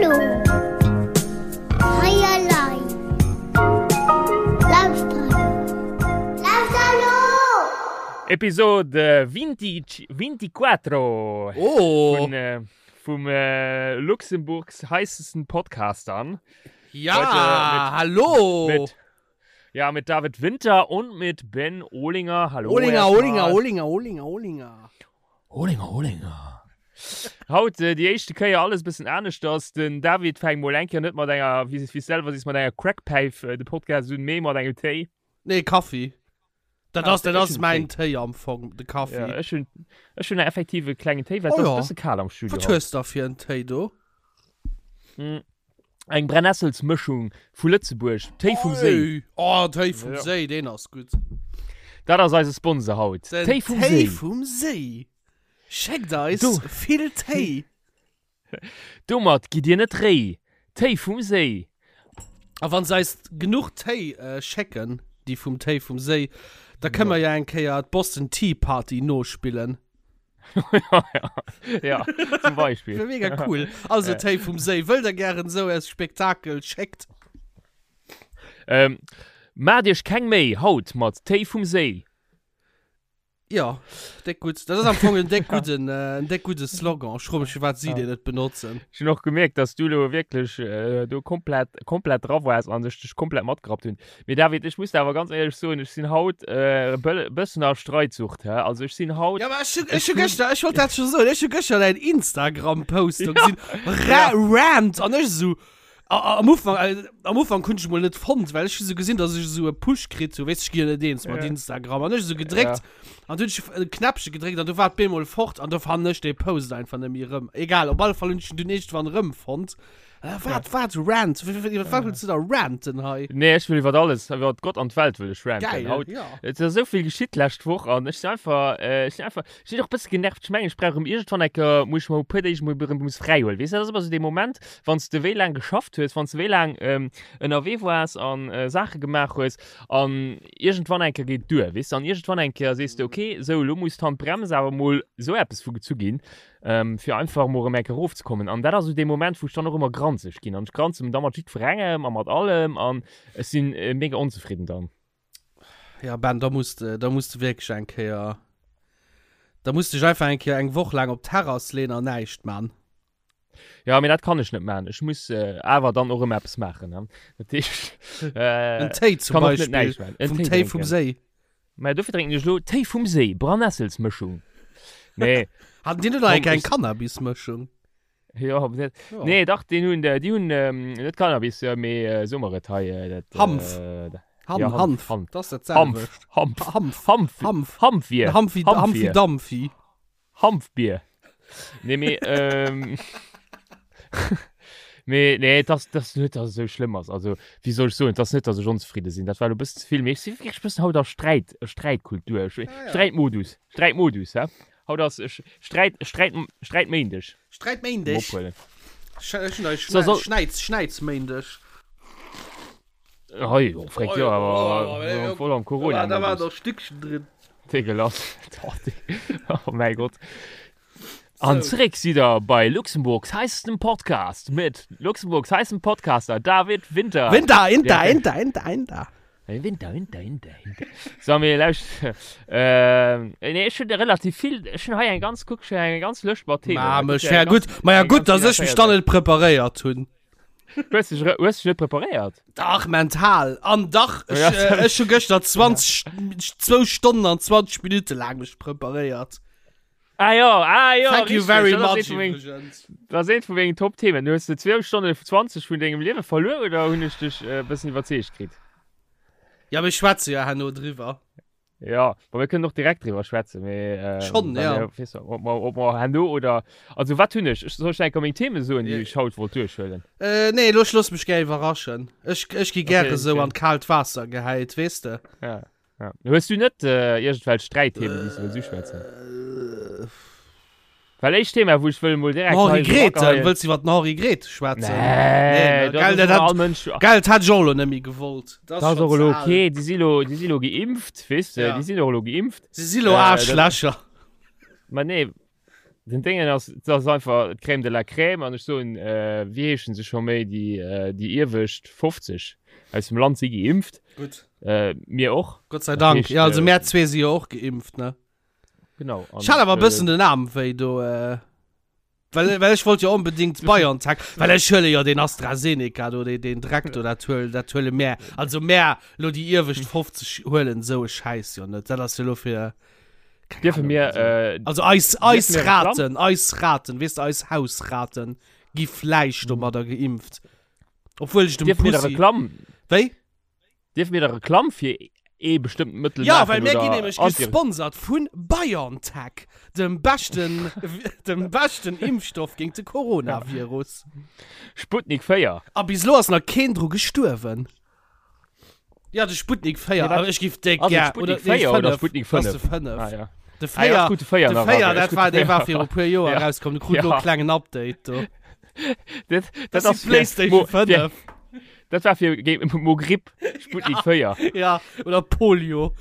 Hallo. Hei elei. Lauschter Lauschter elo! Episode 20, 24 Oh! vun, äh, vum äh, Luxemburgs heißesten Podcastern. Ja, Heute mit- hallo! Mit, ja, mit David Winter und mit Ben Ohlinger. Hallo. Olinger, erstmal. Olinger, Olinger, Olinger, Olinger. Ohlinger, Ohlinger. Haut äh, déi éischte Kéier alles bëssen aneschters. Den David fänkt mol eng Kéier net mat enger, wéi wéi selwer sees, mat enger Crackpäif äh, de Podcast un, mee mat engem Téi. Nee, Kaffi. Dat Ah, ass, dat ech ass hunn mäin Téi am Fong, de Kaffi. Ja, ech hunn ech hunn effektiv e klengen Téi, well Oh et ass ja. e bësse kal am Studio. Wat haut. hues da fir en Téi do? Mm. Eng Brennesselsmëschung vu Lëtzebuerg, Téi vum Séi. Oi. Oh, Téi vum Ja. Séi, deen ass gutt. Dat ass eise Sponsor haut. Den Téi vum Téi Séi. vum Séi. Schéckt eis Du. vill Téi. Domat gitt dir net réi. Téi vum Séi. A wann se eis genuch Téi äh, schécken, déi vum Téi vum Séi, da kënne mer ja eng Kéier d'Boston Tea Party nospillen. ja, zum Beispiel. Wär mega cool. Also Téi vum Séi, wëllt der gären esou e Spektakel, schéckt. Ähm, Maacht iech keng Méi haut mat Téi vum Séi. Jo, déck gutt. Dat ass am Fong en déck gudden, en déck gudde Slogan. Ech froe mech, firwat si deen net benotzen. Ech hunn och gemierkt, dass du elo wierklech do komplett, komplett dra waars an ech dech komplett matgerappt hunn. Mee David, ech muss der awer ganz éierlech soen, ech sinn haut e bëssen a Streitsucht, hä? Also ech sinn haut. Jo, mä ech hunn, ech hu gëschter, ech wollt dat scho soen, ech hu gëschter däin Instagram-Post do gesinn, Ra, Rant, an ech esou, Am Ufank, am Ufank hunn ech mol net fonnt, well ech hu sou gesinn, dass ech esou e Push kritt hu, weess ech gi jo net eens mat Instagram an ech esou gedréckt an du hunn ech e Knäppche gedréckt an du war et bemol fort an do fannen ech dee Post einfach net méi erëm. Egal, op alle Fall hunn ech en dunn iergendwann erëmfonnt. Wat, wat, Rant? Iwwer wat wëlls du da ranten hei? Nee, ech wëll iwwer alles, iwwer Gott an d'Welt wëll ech ranten Geil, haut. jo. Et ass esou vill geschitt d'lescht Woch an ech sinn einfach, ech sinn einfach, Ech sinn och e bësse genervt. Ech mengen, ech brauch erëm iergendwann eng Kéier, muss ech mer e puer Deeg mol erëm muss fräi huelen. Weess de, dat ass ëmmer esou dee Moment, wann s de wéi laang geschafft hues, wann s de wéi laang ënnerwee waars an Saache gemaach hues an iergendwann eng Kéier geet et duer, weess de. An iergendwann eng Kéier sees de, okay, sou elo muss d'Handbrems awer mol esou eppes vu gezu ginn, fir einfach mol erëm eng Kéier erofzekommen. An dat ass esou dee Moment, wou ech dann och ëmmer granzeg ginn. An ech granze da mat jiddwerengem a mat allem an ech sinn mega onzefridden dann. Ja, Ben, da muss de, da muss de wierklech eng Kéier, da muss dech einfach eng Kéier eng Woch laang op d'Terrass leen an näischt man. Ja, mee dat kann ech net man. Ech muss äh, awer dann och ëmmer eppes maachen. Ne? Dat heescht, äh, En Téi zum kann och net Beispill. näischt man. En Vum Téi Téi vum drénken. Séi. Mä dofir drénken ech lo Téi vum Séi, Brannesselsmëschung. Nee, Haten déi net nach Komm, eng eng ech- Cannabismëschung? Ja, aber net. Ja. Nee, dach, den hunn, äh, déi hunn ähm, net Cannabis, äh, mee äh, so mer et hei. Äh, dat, Hanf. Äh, da- Ham, Ja, Hanf. Hanf, Hanf. Das ist das Hanf, selwecht. Hanf, Hanf. Hanf, Hanf. Hanfbier. Hampfi, Hampfi, Hanfbier. Dampfi. Hanfbier. Nee, mee, ähm, mee, nee, das, das net, dass et esou schlëmm ass. Also, wéi soll ech soen, et ass net, dass ech onzefridde sinn. Dat war elo e bëssen ze vill. Mee ech si wierklech e bëssen haut a Sträit, Sträitkultur, Ah, ja. Sträitmodus, Sträitmodus, hä? Haut ass Sträit, Sträit, Sträitméindeg. Sträitméindeg. Ophuelen. So, so, Schnäiz, Schnäizméindeg. Hei, oh, frek, jo, awer voll am Corona. Da war doch Stückchen drin. Degelas. Oh mäi Gott. An zeréck sidd der bei Luxemburgs heißestem Podcast mit Luxemburgs heißem Podcaster David Winter. Winter, Inter, Inter, Inter, Inter. Winter, Winter, Winter, Winter. So, mir lauscht. Äh, nee, ech hunn relativ vill. Ech hunn hei eng ganz, kuck, ech hunn eng ganz Lëscht mat Themen. Ma, mech, ja gutt, ma ja gutt, dass ech mech dann net preparéiert hunn. Hues dech, hues dech net preparéiert? Dach, mental. An dach, ech, Ja, äh, ech hu gëschter 20, zwou Stonnen an 20 Minutte laang mech preparéiert. Ah jo, ah jo, Thank you richtig, very dat ass much eent vu meng- iwwregens. Dat ass eent vu mengen Top-Themen. Du hues de 2 Stonnen 20 vun dengem Liewe verluer oder hunn ech dech e bëssen iwwerzeegt kritt? Ja, mir schwätze jo herno driwwer. Ja, ma mir kënnen och direkt driwwer schwätzen, mee ähm, Schon, well ja. mir, weess du, ob mer, ob mer herno oder also wat hunn ech? Ech soll ech enker meng Themen soen, déi Ja. ech haut wollt duerchhuelen? Äh, nee, lo ech looss mech gär iwwerraschen. Ech, ech gi gäre Okay, sou okay. an d'kaalt Waasser gehäit, weess de. Ja. Ja. Hues du net äh, iergendwelch Sträitthemen, déi s du wëlls uschwätzen? Äh, Well éischt Thema, wou ech wëll mol direkt Henri hei so Grethen, ageheien- wëlls du iwwer den Henri Grethen schwätzen? Nee, Nee, dat gell, ass dat ëmmer hat- all Mënsch. Gell, dat hätt ech och elo net méi gewollt. Dat ass schon och elo ze al. okay, déi si lo, déi si lo geimpft, weess de, Ja. déi sinn och elo geimpft. Si si lo Äh, dat- Aarschlächer. Ma nee. Den Déngen ass, dat ass einfach d'Crème de la Crème an ech soen, wéi heeschen se scho méi, déi, déi iewescht 50 aus dem Land si geimpft. Gutt. Mir och. Gott sei Dank. Ja, also mär zwee si jo och geimpft, ne? Genau. Ech hat awer e bëssen den Aarm wéi do, well, well ech wollt jo onbedingt BioNTech, well ech huele jo deen AstraZeneca do, deen, deen Dreck do, dat huel, dat huele mär, also mär lo déi iewescht 50 huelen esou e Schäiss jo net. Dat ass jo lo fir. Keine Dürfen Ahnung, mir, also, äh, also eis, eis mir Reklamm? Raten, eis Raten, weess de, eis Hausraten gi vläicht Mhm. domadder geimpft. Obwuel ech dem Dierfen mir da Pussy. Reklamm, Wéi? dierfen mir da Reklamm fir ee bestëmmten Mëttel Ja, maachen well mir oder ginn nämlech Anti- gesponsert vun BioNTech, dem beschten, dem beschten Impfstoff géint de Coronavirus. Sputnik 4. A bis elo ass nach keen dru gestuerwen. Ja, de Sputnik 4, Nee, wat? awer ech giff déck Ass et gär. Sputnik nee, 4 oder 5. Sputnik Das ass 5? de 5. Ah, ja. De Ah, ja, 4, ech krut de 4 de nach 4, eraus. Ech dat krut war, de dee war 4 viru puer Joer Ja. erauskomm. Du krut lo Ja. e klengen Update do. Dat, Das dat ass ass die PlayStation Mo- fir- 5. Dat war fir géint Mo Gripp, Sputnik 4. Ja, oder Polio.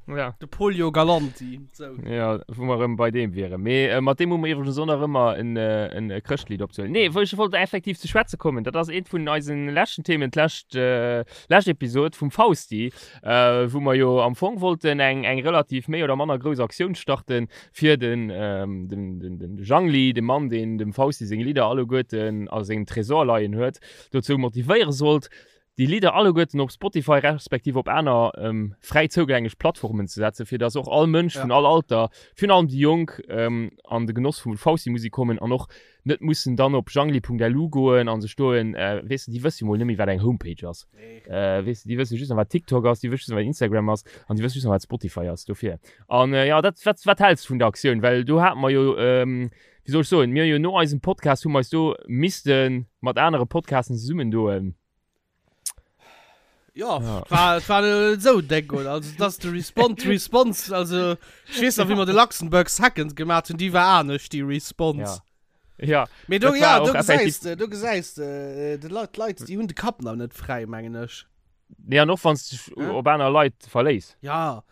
Ja. De Polio Galanti. So. Ja, wou mer erëm bei deem wieren. Mee äh, mat deem hu mer iwwregens och nach ëmmer en, äh, en äh, Chrëschtlied opzehuelen. Nee, wou ech wollt effektiv ze schwätze kommen, dat ass eent vun eisen leschten Themen, d'lescht äh, lescht Episod vum Fausti, äh, wou mer jo am Fong wollten eng, eng relativ méi oder manner grouss Aktioun starten, fir den, ähm, den, den, den Jangli, de Mann, deen dem Fausti seng Lidder alleguerten a sengem Tresor leien huet, dozou motivéiere sollt, déi Lidder alleguerten op Spotify respektiv op aner fräi zougänglech Plattformen ze setzen, fir dass och all Mënsch vun all Alter, virun allem déi Jonk, an de Genoss vu Fausti-Musek kommen an och net mussen dann op jangli.lu goen a sech do en, weess de, déi wësse jo mol net méi, wat eng Homepage ass, weess de, déi wësse just nach, wat TikTok ass, déi wësse just nach, wat Instagram ass an déi wësse just nach, wat Spotify ass. Dofir. An jo, dat, wat, wat häls de vun der Aktioun? Well do hate mer jo, wéi soll ech soen, mir hu jo no eisem Podcast hu mer eis do misste mat anere Podcasten zesummendoen. Ja, ja. War, et war net esou déck, oder? Also, dass de Response, Response, also, ich weess nach, wéi mer de Luxembourg Second gemaat hunn, déi war anescht, déi Response. Ja. Ja. Mee do, Dat ja, war do och effektiv- gesäis de, do gesäis de, de Leit, d'Leit, déi hunn de Kapp nach net fräi, mengen ech. Nee, an och wann s dech Ja. op aner Leit verléiss. Ja.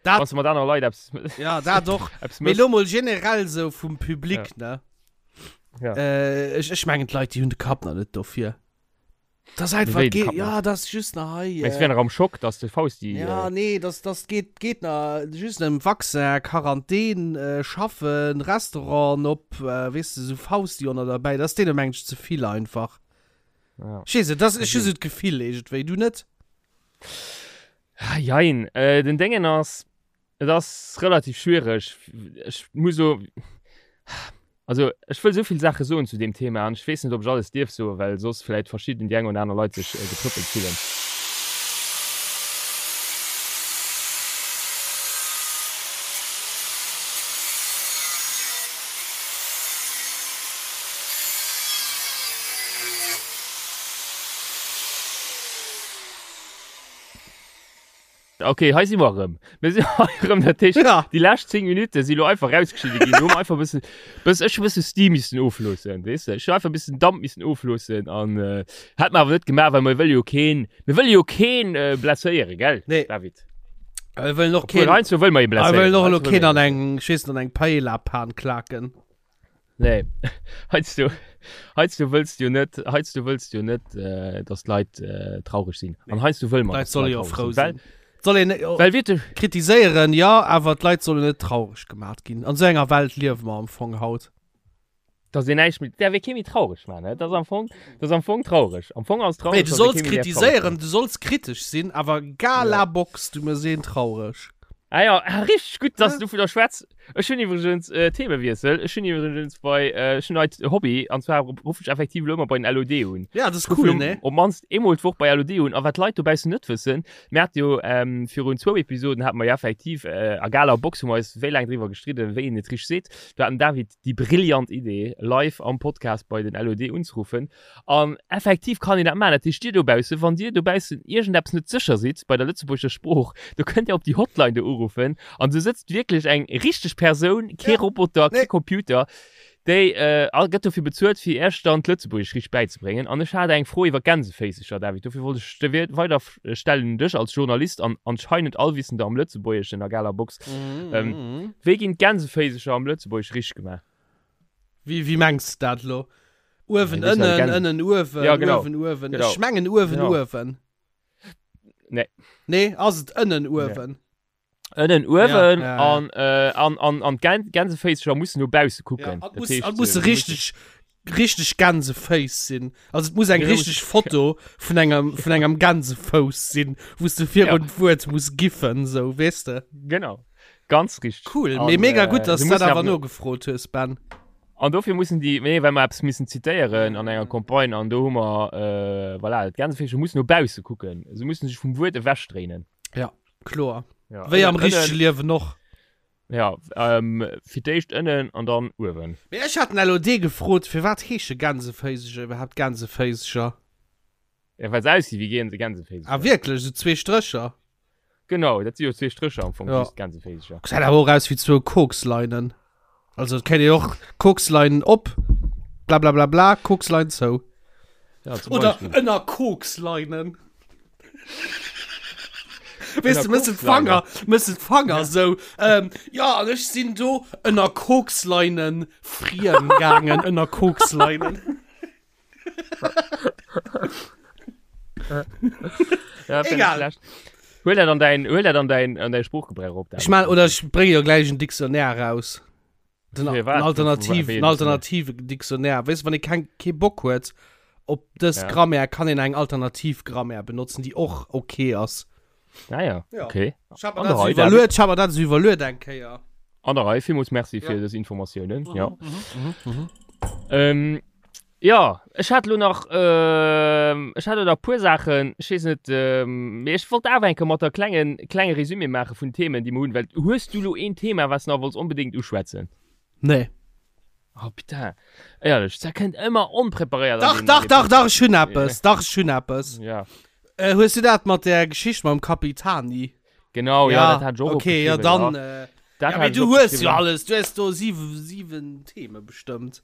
Dat, Wann s de mat anere Leit eppes, ja, dat och. eppes Mee méchs. lo mol generell sou vum Public, ne? Ja. Äh, ech, ech mengen, d'Leit, déi hunn de Kapp nach net dofir. Das einfach Wéi, de geht, Kapp ja, das just nach hei. Mengst du, wär nach am Schock, dass de Fausti. Ja, äh, nee, das, das geht, geht nach just ëm Vaccin, Quarantän, äh, schaffen, Restauranten op, äh, weess de, sou Fausti och nach derbäi. Das deene mengen ech ze vill einfach. ja. Ech weess net, das, ech hu sou d'Gefill iergendwéi, du net? Ah, Jein, äh, den Déngen ass, Et ass relativ schwiereg. Ech muss so, also ech wëll esou vill Saache soen zu deem Thema an ech weess net, ob ech alles dierf soen, well soss vläit verschidden, déi eng oder aner Leit sech getrëppelt fillen. Ok, hei si mer erëm. Mir sinn hei erëm, dat heescht, Ja. déi lescht 10 Minutte si lo einfach rausgeschnidde ginn. Do hu mer einfach e bëssen, bëss, ech hu e bësse Steam missen ofloossen, weess de. Ech hu einfach e bëssen Damp missen ofloossen an äh, hätt mer awer net gemaach, well mer wëlle jo keen, mir wëlle jo keen äh, blesséieren, gell, Nee. David? Wir wëllen och Obwohl, keen, heiansdo wëlle mer ee wir blesséieren. wëllen och elo Heiansdo wëlle keen mer an ee eng, ech weess net, an eng Paella-Pan klaken. Nee, heiansdo, heiansdo wëlls du jo net, heiansdo wëlls du jo net, äh, dass d'Leit äh, traureg sinn. An heiansdo wëlle mer, D'Leit dass solle d'Leit jo traureg frou sinn. sinn. Soll een Well, well wierklech, kritiséieren, jo, awer d'Leit sollen net traureg gemat ginn. An esou enger Welt liewe mer am Fong haut. dass een näischt méi, däerf ee kee méi traureg maachen, ne? Dat ass am Fong, dat ass am Fong traureg. Am Fong ass et traureg, Nee, du dass ee solls kee méi däerf traureg kritiséieren, du solls kritesch sinn, awer Galabox, du méchs een traureg. Ah ja, ah, richtig gutt, dass du dovunner schwätz. Ech hunn iwwregens äh, Themewiessel. Ech hunn iwwregens bei äh, ech hunn neit Hobby an zwar ruff ech effektiv elo ëmmer bei den LOD un. Ja, das ist Ech cool, ruff ne? Op mannst eemol d'Woch bei LOD un. A wat d'Leit dobaussen net wëssen, mir hate jo ähm, virun zwou Episoden hate mer jo effektiv äh, a Gala Box hu mer eis wéi laang driwwer gestridden, wéi een et richteg seet. Do hat den David déi brillant Idee, live am Podcast bei den LOD unzeruffen. An effektiv kann een dat maachen. Dat heescht, dir dobaussen, wann dir dobaussen iergendeppes net sécher sidd bei der lëtzebuergescher Sprooch, do kënnt dir op déi Hotline do uruffen an do sëtzt wierklech eng richteg Persoun, kee Ja. Roboter, kee Nee. Computer, déi äh, gëtt dofir bezuelt, fir iech dann d'Lëtzebuergesch richteg bäizebréngen. An ech hat eng Fro iwwer Gänseféisecher, David, dofir wollt ech der weider stellen un dech als Journalist an anscheinend Allwissender am Lëtzebuergeschen a galer Box. Ähm, wéi ginn d'Gänseféisecher am Lëtzebuergesch richteg gemaach? Wéi, wéi mengs de dat elo? Uewen, Ja, ënnen, Gänse- ënnen, uewen, Ja, genau. uewen, uewen. Genau. Ech mengen uewen, Genau. uewen. Nee. Nee, ass et ënnen, uewen? Ënnen, uewen Ja, ja, ja. an, äh, an, an, an d'Gän Gänseféissecher mussen no bausse Ja, kucken. an Dat muss, heescht, an muss äh, richtig, richtig Gänseféiss sinn. Also et muss eng Ja, richtig Foto vun engem, vun engem Gänsefouss sinn, wou s du virun Ja. d'Wuert muss giffen, sou, weess de? Genau. Ganz richtig. Cool, An, mee mega äh, gutt, dass se du dat mussen awer awer no- nogefrot hues, Ben. An dofir mussen déi, nee, well mer eppes missen zitéieren an enger Campagne an do hu mer, äh, voilà, d'Gänseféischer mussen no bausse kucken. Se mussen sech vum Wuert ewechdréinen. Ja, kloer. Ja, Wéi am ënnen- richtege Liewen och. Ja, ähm, fir d'éischt ënnen an dann uewen. Mee ech hat den LOD gefrot, firwat heesche Gänseféiseger iwwerhaapt Gänseféiseger? Ja, well se aussi wéi Gänse, Gänseféiseger. Ah wierklech, esou zwee Strécher? Genau, dat si jo zwee Strécher am Fong, Ja. just Gänseféiseger. Gesäit awer och aus wéi zwou Koksleinen. Also et kéint een och Koksleinen op, blablabla, Kokslein zou. Ja, zum Oder Beispill. ënner Koksleinen. Weess du, Ënner mëss de d'Fanger, mëss de d'Fanger sou. Ähm, ja, an ech sinn do ënner Koksleinen friem gaangen, ënner Koksleinen. Ja, fänd ich Egal. schlecht. Huel dat an däin, huel dat an däin, an däi Sproochgebrauch op. Ech man, oder ech brénge jo gläich en Dictionnaire raus. Den, Fir wat? en alternativ, Wéi en en alternative Dictionnaire. Weess du, wann ee keng, kee Bock huet op dës Ja. Grammaire, kann een eng alternativ Grammaire benotzen, déi och okay ass. Ah ja, Ja. okay. Ech hab mer An der dat Rei, so iwwerluet, ech hab mer dat so iwwerluet eng Kéier. An der Rei, villmools Merci fir Ja. dës Informatiounen. Ja. Mhm, mhm. Ähm, ja, ech hat lo nach, ähm, ech hat lo nach puer Saachen, ech weess net, ähm, mee ech wollt awer eng Kéier mat der klengen, klenge Resumé maache vun Themen, déi mer hunn, well hues du lo een Thema, wat s nach wollts onbedéngt uschwätzen? Nee. Oh putain, éierlech, dat kënnt ëmmer onpreparéiert an Dach, den- dach, an den dach, dach, ech hunn Ja. eppes, dach, ech hunn eppes. Ja, Äh, hues du dat mat der Geschicht mam Capitani? genau, ja, dat hat ech och okay, ja, opgeschriwwen, dann. ja. Äh, Dat ja, hat mee ech du hues jo opgeschriwwen. alles, du hues do siwe, siwen Theme bestëmmt.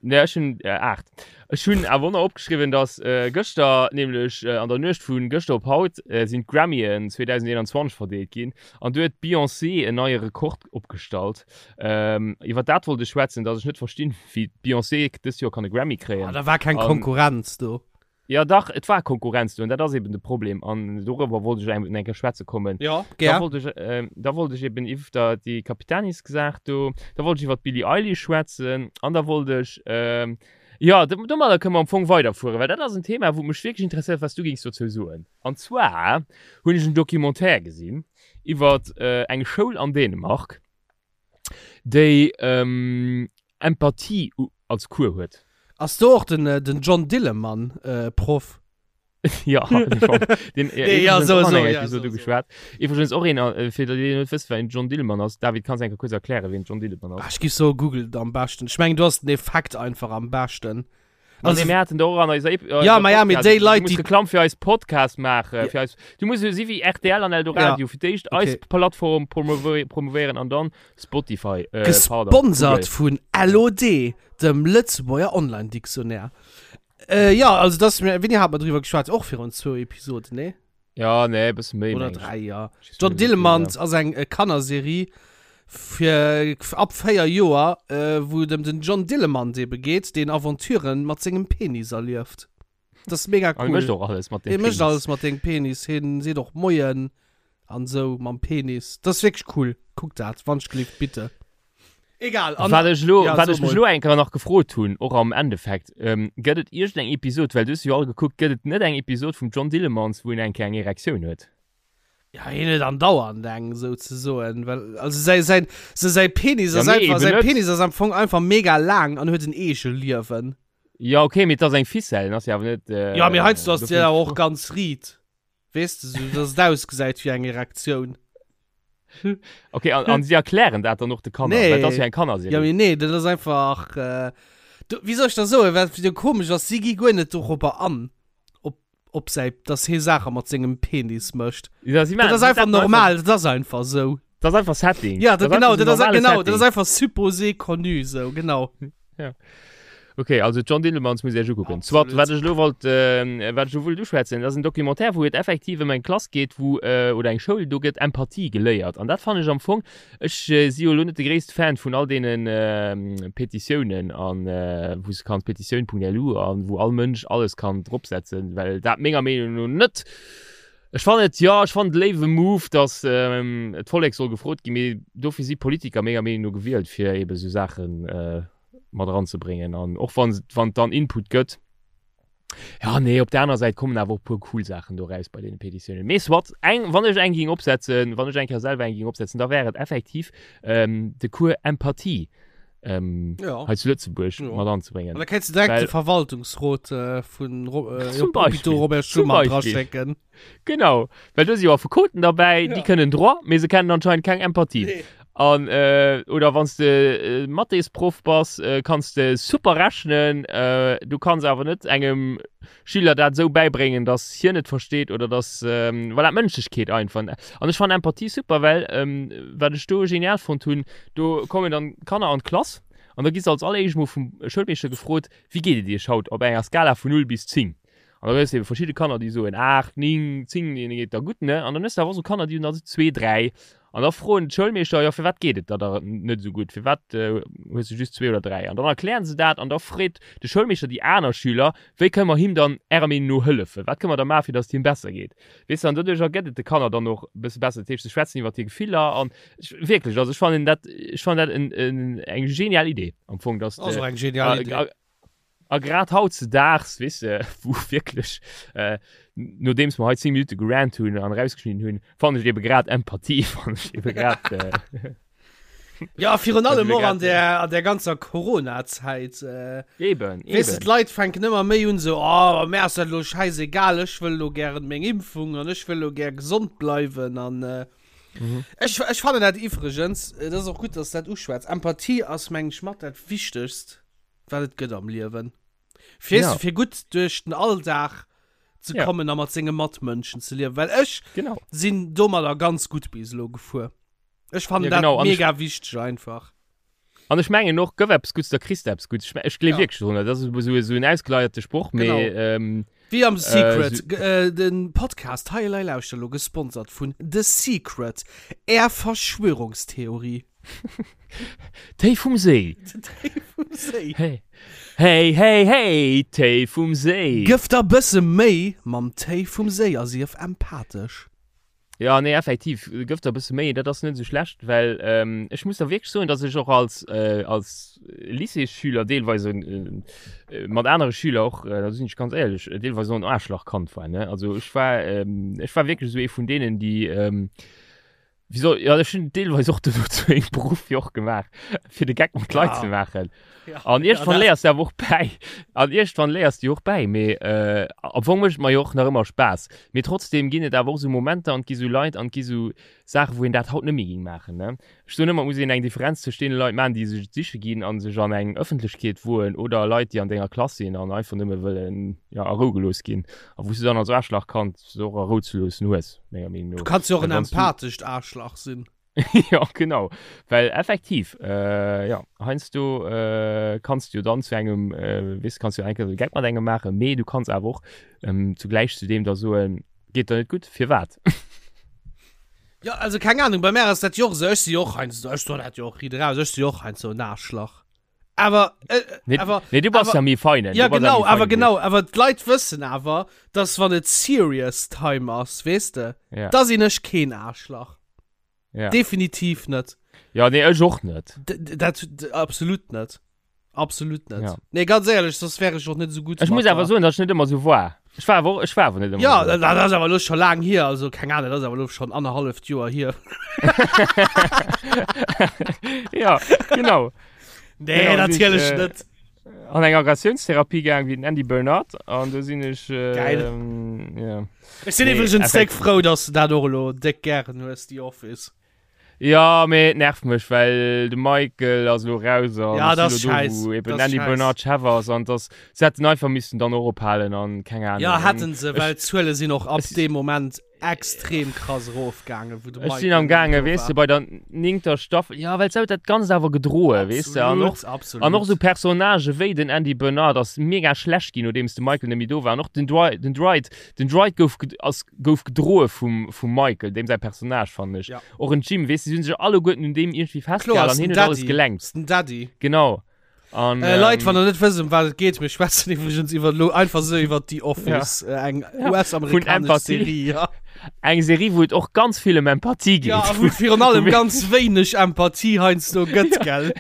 Ne, ech hunn äh, 8. Ech hunn awer och nach opgeschriwwen, dass äh, gëschter, nämlech äh, an der Nuecht vu gëschter op haut, äh, sinn d'Grammyen 2021 verdeelt ginn. An do huet d'Beyoncé en neie Rekord opgestallt. Ähm, iwwer dat wollt ech schwätzen, dass ech net verstinn, wéi d'Beyoncé dëst Joer kann e Grammy kréien. Ah, da war keng An- Konkurrenz do. Ja dach, et war Konkurrenz do an dat ass eben de Problem an dorëwer wollt ech eng eng Kéier schwätze kommen. Ja, Da gär. wollt ech, äh, da wollt ech eben iwwer déi Capitanis-Saach do, da wollt ech iwwer d'Billie Eilish schwätzen an da wollt ech, ähm, ja, do, domadder kënne mer am Fong weiderfueren, well dat ass en Thema, wou mech wierklech interesséiert, wat s du géings dozou soen. An zwar hunn ech en Documentaire gesinn iwwer äh, eng Schoul an Dänemark, déi ähm, Empathie als Cours huet. Ass do och den, den John Dillemann äh, Proff? ja, den John, den, ja, Nee, ja, iwwregens so, och an so, enger ja, Episode so, so. geschwat. Iwwregens och een, äh, fir déi, déi net wëssen, wien John Dillemann ass. David, kanns du eng Kéier kuerz erklären, wien John Dillemann ass? Ah, ech giff soe Google et am beschten. Ech mengen, do ass den Effekt einfach am beschten. Also, nee, mir haten do och an eiser Ep Ja, ma ja, mee déi Leit, Du muss déi- Reklamm fir eis Podcast maachen. Fir eis, du muss esou si wéi RTL an Eldoradio. Fir d'éischt eis Okay. Plattform promovéi- promovéieren an dann Spotify. Äh, pardon, Gesponsert Google. vun LOD, dem Lëtzebuerger Online-Dictionnaire. Äh, ja, also das, wéini hat mer driwwer geschwat? Och virun zwou Episoden, nee? Ja, nee, e bësse méi. Oder meng ech. dräi, ja. Ich John weiß nicht, Dillermand ass eng äh, Kannerserie fir ab 4 Joer, äh, wou et ëm den John Dillermand ebe geet, deen Aventuren mat sengem Penis erlieft. Das ist mega Ja. cool. Hie mécht och alles mat dem Hie mécht Penis. alles mat dengem Penis. Hien seet och Moien an sou mam Penis. Das ist wierklech cool. Kuckt dat, wann ech gelift, bitte. Egal. An, Wat ech lo, ja, wat so ech mech mol. lo eng Kéier nach gefrot hunn, och am Endeffekt, ähm, gëtt et iergendeng Episod, well du hues jo all gekuckt, gëtt et net eng Episod vum John Dillermand, wou en eng Kéier eng Erektioun huet? Ja, hien huet andauernd eng, souzesoen. Well, also säi, säin, se säi Penis Ja, ass nee, einfach, eben säi net. Penis ass am Fong einfach mega laang an huet en Eegeliewen. Ja, okay, mee et ass eng Ficelle, en ass jo awer net, äh, Ja, mee heiansdo ass dofir déi awer och ganz riit. Weess de, sou dass et ausgesäit wéi eng Erektioun. Okay, an, an si erklären dat dann och de Kanner, Nee. well dat ass jo eng Kannerserie. Ja, mee nee, dat ass einfach, äh, du, wéi soll ech der soen, wat jo komesch ass, si gi guer net dorobber an, op, op säi, dass hie Saache mat sengem Penis mécht. Ja, si Dat maachen- ass si einfach setzen normal, dat ass einfach sou. Dat ass einfach Setting. Ja, dat, ass genau, einfach dat so ass, normale genau, dat ass Setting. einfach supposé connu, sou, genau. Ja. Ok, also John Dillermand muss Iech ukucken. Soit, wat ech elo wollt, wat ech elo wollt uschwätzen, dat ass en Documentaire, wou et effektiv ëm eng Klass geet, wou, oder eng Schoul, do gëtt Empathie geléiert. An dat fannen ech am Fong, ech si jo elo net de gréisste Fan vun all deene Petitiounen an wou s de kanns petitioun.lu an wou all Mënsch alles kann dropsetzen, well dat menger Meenung no net, ech fannen et, jo, ech fannen et e léiwe Move, datt d'Vollek soll gefrot ginn, mee dofir si Politiker menger Meenung no gewielt, fir eebe sou Saachen mat eranzebréngen an och wann wann et dann Input gëtt. Ja nee, op der aner Säit kommen awer och puer cool Saachen do raus bei deene Petitiounen. Mee soit, eng, wann ech eng ging opsetzen, wann ech eng Kéier selwer eng ging opsetzen, da wär et effektiv ähm, de Cours Empathie ähm, Ja. hei zu Lëtzebuerg Ja. mat anzebréngen. An da kéints du direkt Well- de Verwaltungsrot äh, vun Ro äh, Zum Hôpitaux Beispill. Robert Zum Schuman Beispill. draschécken. Genau, well do si jo Affekoten derbäi, Ja. déi kënnen Droit, mee se kennen anscheinend keng Empathie. Nee. An, äh, oder wann s de äh, Mathésproff bass, äh, kanns de super rechnen, äh, du kanns awer net engem Schüler dat esou bäibréngen, dass hien et versteet oder dass, ähm, voilà, d'Mënschlechkeet einfach. An ech fannen Empathie super, well, ähm, wat ech do genial fonnt hunn, do kommen dann d'Kanner an d'Klass an da gi se als alleréischt mol vum Schoulmeeschter gefrot, Wéi geet et iech haut op enger Skala vun 0 bis 10? An da hues de eben verschidde Kanner, déi soen 8, 9, 10, deene geet da gutt, ne? An dann hues de awer och esou Kanner, déi hunn da esou 2, 3. An da froen d'Schoulmeeschter, jo, firwat geet et der da net esou gutt, firwat hues de just 2 oder 3? An dann erklären se dat an da freet de Schoulmeeschter déi aner Schüler, wéi kënne mer him dann ärer Meenung no hëllefen, wat kënne mer da maachen, fir datt et him besser geet? Weess de, an doduercher gëtt et de Kanner dann och e bësse besser. Dat heescht, se schwätzen iwwer hir Gefiller an ech, wierklech, also ech fannen dat, ech fannen dat en, en, eng genial Idee am Fong, datt Ass de, och eng genial Idee. A grad hautzedaags, weess de, wou wierklech, nodeems mer hei 10 Minutte gerant hunn an erausgeschnidden hunn, fannen ech ebe grad Empathie, fannen ech ebe grad. Ja, virun allem ebe och an grad, der, an der ganzer Corona-Zäit. Äh, Eben, weess de, eben. d'Leit fänken ëmmer méi un esou, oh, mär ass dat elo schäisegal, ech wëll elo gären meng Impfung an ech wëll elo gär gesond bleiwen an äh, Mhm. ech, ech fannen dat iwwregens, et ass och gutt, dass de dat uschwätz, Empathie ass, meng ech, mat dat Wichtegst. wat et gëtt am Liewen. Fir, Ja. fir gutt duerch den Alldag ze Ja. kommen a mat senge Matmënschen ze liewen. Well ech Genau. sinn domadder ganz gutt bis elo gefuer. Ech fannen Ja, dat genau. An ech- mega wichteg einfach. An ech mengen och, gëff eppes Gutts, da kriss de eppes Gutts. Ech, ech gleef Ja. wierklech drun. Dat ass esou esou en ausgeleierte Sproch, mee Genau. ähm, Wéi am Äh, Secret, so- g- äh, den Podcast Hei Elei Lauschter elo gesponsert vun The Secret, Är Verschwörungstheorie. Téi vum Séi. Téi vum Séi. Hey, hey, hey, hey, Téi vum Séi. Gëff der bësse Méi mam Téi vum Séi a sief empathesch. Ja, nee, effektiv, gëff der e bësse Méi, dat ass net esou schlecht, well ähm, ech muss da wierklech soen, dass ech och als, äh, als Lycéesschüler deelweis äh, mat anere Schüler och, äh, da sinn ech ganz éierlech, deelweis och en Aarschlachkand war, ne? Also ech war, ähm, ech war wierklech esou ee vun deenen, déi, ähm, Wieso? Ja, ech hunn deelweis och dono zu engem Beruff jo och gemaach, fir de Geck mat Leit Ja. ze maachen. Ja. An iergendwann Ja, dat- léiers de awer och bäi. An iergendwann léiers de jo och bäi. Mee äh, am Fong mécht et mer jo och nach ëmmer Spaass. Mee trotzdem ginn et awer och esou Momenter an et gi sou Leit an et gi sou Saachen, wou een dat haut net méi géing maachen, ne? Ech soen ëmmer, et muss een eng Differenz tëscht deene Leit maachen, déi sech et siche ginn a sech an eng Ëffentlechkeet woen, oder Leit, déi an denger Klass sinn an einfach nëmme wëllen, jo, a Rou gelooss ginn. A wou s du dann als Aarschlachkand se och a Rou ze loossen hues, menger Meenung no. Du kanns jo och en Well wann s du. empathescht Aarschlach sinn. Jo, genau. Well effektiv, jo, heiansdo kanns du jo dann zu engem, weess, kanns du jo eng Kéier de Geck mat engem maachen, mee du kanns awer och zugläich zu deem da soen, Geet der net gutt? Firwat? Jo, also keng Ahnung, bei mär ass dat jo och esou, ech si jo och heiansdo, ech soen dat jo och riit eraus, ech si jo och heiansdo en Aarschlach. Awer, äh, Nee, awer, nee, du bass awer, ja méi feinen. ja Du bass ja genau, méi awer feinen wéi genau, ech. awer d'Leit wëssen awer, dass wann et serious time ass, weess de, Ja, da sinn ech keen Aarschlach. ja. Definitiv net. Ja, nee, ech och net. D dat absolut net. Absolut net. Ja. Nee, ganz éierlech, soss wär ech och net esou gutt Ech muss mat awer der. soen, dass ech net ëmmer esou war. Ech war awer och, ech war awer net ëmmer Ja, esou. dat dat ass awer elo scho laang hier, also keng Ahnung, dat ass awer elo schonn annerhalleft Joer hier. Ja, genau. Nee, Genau, si ech, natierlech äh, net. an eng Aggressionstherapie gaang wéi den Andy Bernard an do sinn ech, äh, Geil. ja. Ech sinn Nee, iwwregens déck effektiv. frou, dass du dat och elo déck gären hues, The Office. Ja, mee et nervt mech, well de Michael ass elo raus an Ja, ech dat sinn ass elo do, scheiss. wou eben Dat ass Andy scheiss. Bernard Chef ass an dass se hätten einfach missen dann och ophalen an keng Ja, Ahnung. An hätten se, ech, well d'Zuele sinn och ab ech, deem Moment ja. extrem krass erofgaangen, wou de Ech sinn am Michael gaange, do weess de, war. bei der néngter Staffel, ja, well se huet dat Ganzt awer gedroe, weess de, an och, Absolut, absolut. an och esou Personnagë wéi den Andy Bernard ass mega schlecht ginn, nodeems de Michael net méi do war, an och den Dwight, den Dwight, den Dwight gouf, ass, gouf gedroe vum, vum Michael, deem säi Personnage, fannen ech. Ja. Och en Jim, weess de, si hunn sech alleguerten un deem iergendwéi Kloer, festgehal ass an den hien huet alles Daddy, gelenkt. ass den Daddy. Genau. An, Äh, Leit, ähm, wann der net wësst, ëm wat et geet, mir schwätzen iwwregens iwwer lo einfach sou iwwer The Office, ja. äh, eng Ja, US-amerikanesch Empathie. Serie. Ja. Eng Serie, wou et och ganz vill ëm Empathie geet. ja, a wou et virun allem ganz wéineg Empathie heiansdo gëtt, gell?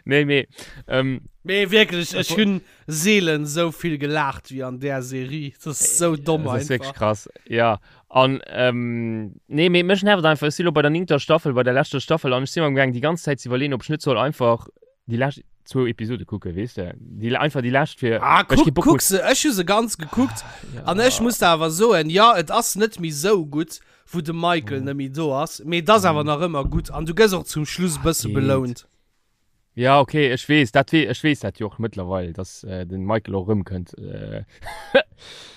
Nee, mee, ähm, Mee wierklech, ech hunn seelen sou vill gelaacht wéi an där Serie. Dat ass sou domm Das ass wierklech einfach. krass, ja. An, ähm, nee, mee mech nervt einfach, ech si lo bei der néngter Staffel, bei der leschter Staffel, an ech si mer am gaang déi ganz Zäit ze iwwerleeën, ob ech net soll einfach déi lescht zwou Episode kucken, weess de? Déi, einfach déi lescht fir, Ah, well ech kee kuck, Bock kuck hunn. se, ech hu se ganz gekuckt. Ja. An ech muss der awer soen, jo, et ass net méi sou gutt, wou de Michael net méi do ass, mee et ass awer nach ëmmer gutt an du gëss och zum Schluss e bësse Geet. belount. Ja, okay, ech weess dat, ech weess dat jo och mëttlerweil, dass äh, den Michael och erëmkënnt. Äh,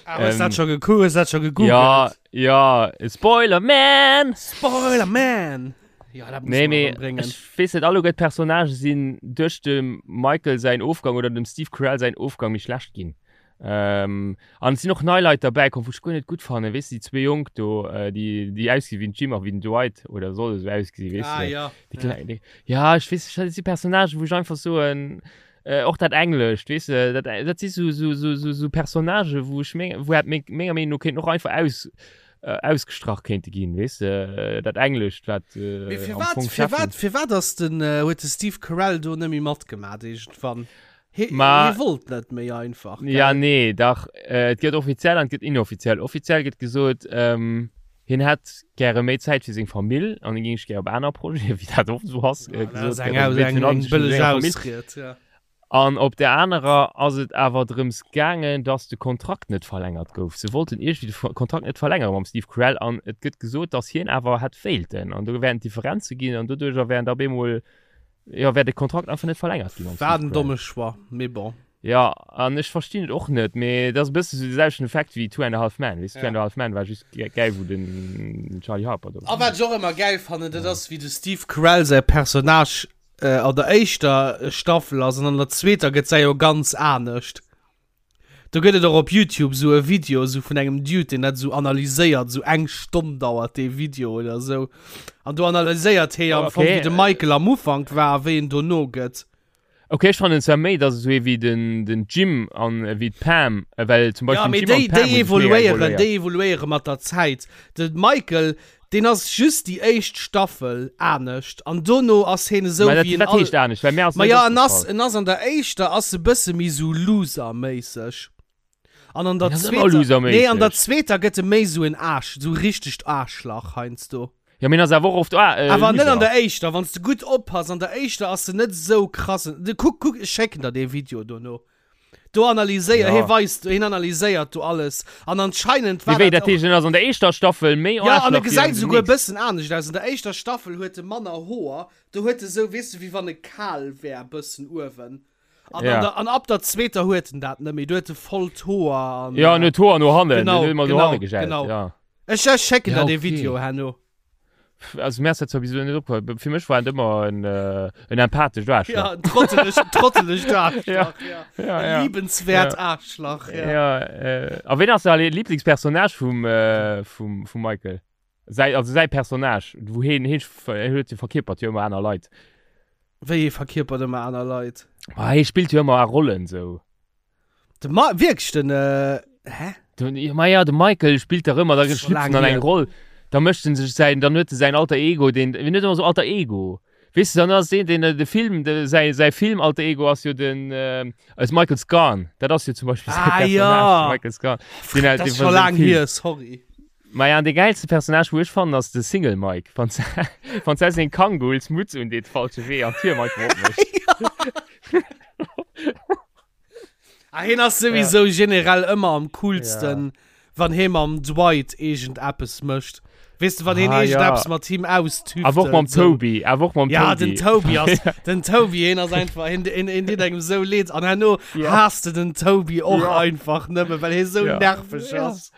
ah, hues ähm, dat scho gekuckt? Hues dat scho gegoogelt? Ja, ja, Spoiler Man! Spoiler Man! Ja, dat muss Nee, man mee erëmbréngen. ech weess net, alleguer d'Personnagë sinn duerch dem Michael säin Ofgang oder dem Steve Carell säin Ofgang méi schlecht ginn. Ähm, an et sinn och nei Leit derbäi komm, wou ech guer net gutt fannen. Weess de, déi zwee Jonk do, äh, déi, déi ausgesi wéi den Jim a wéi den Dwight, oder solle sou ausgesi, weess Ah, de. ja. Déi kleng, déi, ja, ech weess, dat si Personnagen, wou ech einfach soen, äh, och dat Englescht, weess de, dat, dat si sou, sou, sou, sou, sou Personnagen, wou ech meng, wou hätt meng, menger Meenung no kéinten och einfach aus, äh, ausgestrach kéinte ginn, weess de, dat Englescht, wat, äh, Mee am firwat, Fong firwat, Cheffen. firwat ass den, äh, huet de Steve Carell do net méi matgemat iergendwann? Hie, Ma, hie wollt net méi einfach, ja, gell? nee, dach, äh, et gëtt offiziell an et gëtt inoffiziell. Offiziell gëtt gesot, ähm, hien hätt gäre méi Zäit fir seng Famill an hie géing sech gär op aner Projete, wéi dat oft esou ass, Ja, äh, dat ass gesot eng, gëtt. Also Aus, wéi eng, virun allem eng sech un bëlleg senger Famill. Ausried, ja. An op der anerer ass et awer drëms gaangen, dass de Kontrakt net verlängert gouf. Se wollten iergendwéi de Ver Kontrakt net verlängere mam Steve Carell an et gëtt gesot, dass hien awer hätt wéilten an do wären Differenze ginn an doduercher wären da op eemol Jo, wär de Kontrakt einfach net verlängert ginn mam War Steve en Carell. domme Choix, mee bon. Jo, an ech verstinn et och net, mee et ass e bësse sou de selwechten Effekt wéi Two and a Half Men, weess de, Two Ja. and a Half Men war just gäil, wou den Charlie Harper do A war. wat ech och ëmmer gäil fannen, dat ass wéi de Steve Carell säi Personnage an der éischter Staffel ass an an der zweeter gëtt säi jo ganz anescht. Do gëtt et och op Youtube sou e Video sou vun engem Dude, deen dat sou analyséiert, sou eng Stonn dauert dee Video oder sou. An do analyséiert hee am Fong, Okay. wéi de Michael am Ufank war a wéi en dono gëtt. Okay, ech fannen zwar méi, dass esou ee wéi den, den Jim an wéi d'Pam, well zum Ja, Beispill mee den Jim an déi, d'Pam déi hu sech mega evoluéieren, evoluéiert. déi evoluéiere mat der Zäit. De Michael, Deen ass just déi éischt Staffel anescht an dono ass heen esou Mä dat, wéi en wat all. heescht anescht? Well mär ass Ma net ja, en ass, opgefall. en ass an der éischter ass e bësse méi sou Loser-méisseg. An an der En ass ëmmer zweeter, nee, an der loserméisseg. zweeter gëtt e méi sou en Aarsch, sou richtegt Aarschlach heiansdo. Ja, mee en ass awer och oft Aar, äh, Awer net an Loser. der éischter, wann s de gutt oppass, an der éischter ass en net esou krassen. De, kuck, kuck, ech schécken der dee Video dono. Do analyséiert, Ja. hie weist, hien analyséiert do alles. An anscheinend war Mee wéi, dat dat heescht, en ass an der éischter Staffel méi Ja, an e Aarschlach wéi an gesäit der esouguer e nächster. bëssen anescht aus. An der éischter Staffel huet e manner Hoer. Do huet e sou, weess de, wéi wann e kal wär, bëssen uewen. An, Ja. an, der, an ab der zweeter huet en dat net méi. Do huet e voll d'Hoer an. Ja, en huet d'Hoer no hannen, Genau, en huet ëmmer no genau, hanne gegelt, genau. ja. Ech, ech schécken Ja, der dee okay. Video herno. Also mir ass dat zwar bis elo net opgefall. Fir mech war en ëmmer en, äh, en empathescht Aarschlach. Ja, en trottelegt, trottelegt Aarschlach. Ja. Ja. Ja, En ja. liebenswert Ja. Aarschlach. Ja. Ja, äh, a ween ass däi Lieblingspersonnage vum, äh, vum, vum Michael? Säi, also säi Personnage, wou hien, hien, hien huet jo verkierpert jo ëmmer aner Leit. Wéi hie verkierpert ëmmer aner Leit? Ma hie spillt jo ëmmer a Rollen sou. De Ma wierklech den äh, hä? Den, ja, ma ja, de Michael spillt dach ëmmer, da Das ist schon schlüpft en lang an eng hier. Roll. Da mécht en sech säin, dann huet e säin Alter Ego, deen, wien huet ëmmer sou Alter Ego? Weess de, dann ass deen, deen de Film, de, säi, säi Film Alter Ego ass jo den, äh, ass Michael Scarn. Dat ass jo zum Beispill säi Ah, Personnage, ja. de Michael Scarn. Den, Dat den ass vun scho sengem laang Film. hier, sorry. Ma ja, an de gäilste Personnage, wou ech fannen, ass de Single Mike. Wann se, wann se seng Kangols Mutz un deet, falsche Wee an d'Tür einfach opmécht. Ah, hien ass souwisou generell ëmmer am coolsten, wann hie mam Dwight iergend eppes mécht. Weess de, wann hien Ah, iergend ja. eppes mat him austüftelt. Awer och mam sou. Toby, awer och mam Ja, Toby. den Toby ass, den Toby, hien ass einfach, hien, hien, hien deet engem sou leed. An herno Ja. haasst de den Toby och Ja. einfach nëmme, well hie sou Ja. nerveg Ja. ass.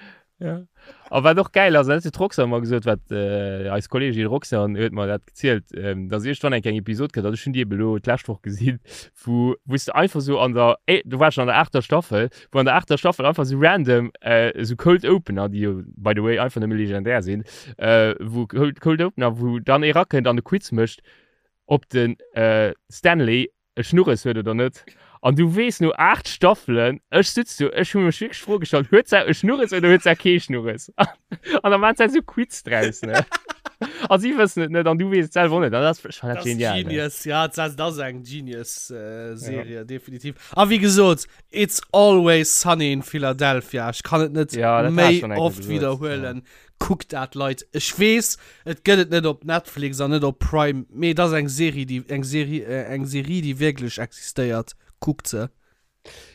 Ja. A wat och geil ass, dat huet d'Roxanne mer gesot, wat äh, eis Kollegin Roxanne huet mer dat gezielt, ähm, dass iergendwann eng eng Episod kënnt, also ech hunn déi eben elo d'lescht Woch gesinn, wou wou s de einfach sou an der, eh, do war ech schon an der aachter Staffel, wou an der aachter Staffel einfach sou random äh, sou Cold Opener, déi jo by the way einfach nëmme legendär sinn, äh, wou Cold, Cold Opener, wou dann ee rakënnt an e Quiz mécht, ob den äh, Stanley e Schnurres huet oder net. An du weess no 8 Staffelen, ech sutz do, ech hu mech wierklech d'Fro gestallt, huet se e Schnurres oder huet se kee Schnurres? An da maachen se esou Quiz draus, ne? A si wëssen et net an du weess et selwer och net. An dat ass, ech fannen dat Das ist genial, ne? Genius, ja, das, das ist eng Genius-Serie, ja. definitiv. A wéi gesot, It's Always Sunny in Philadelphia. Ech kann et net Ja, dat hat méi schon eng Kéier oft gesot, wiederhuelen. Kuckt dat, Leit. Ech weess, et gëtt et net op Netflix an net op Prime, mee et ass eng Serie, déi, eng Serie, eng Serie, déi wierklech existéiert. Kuckt se.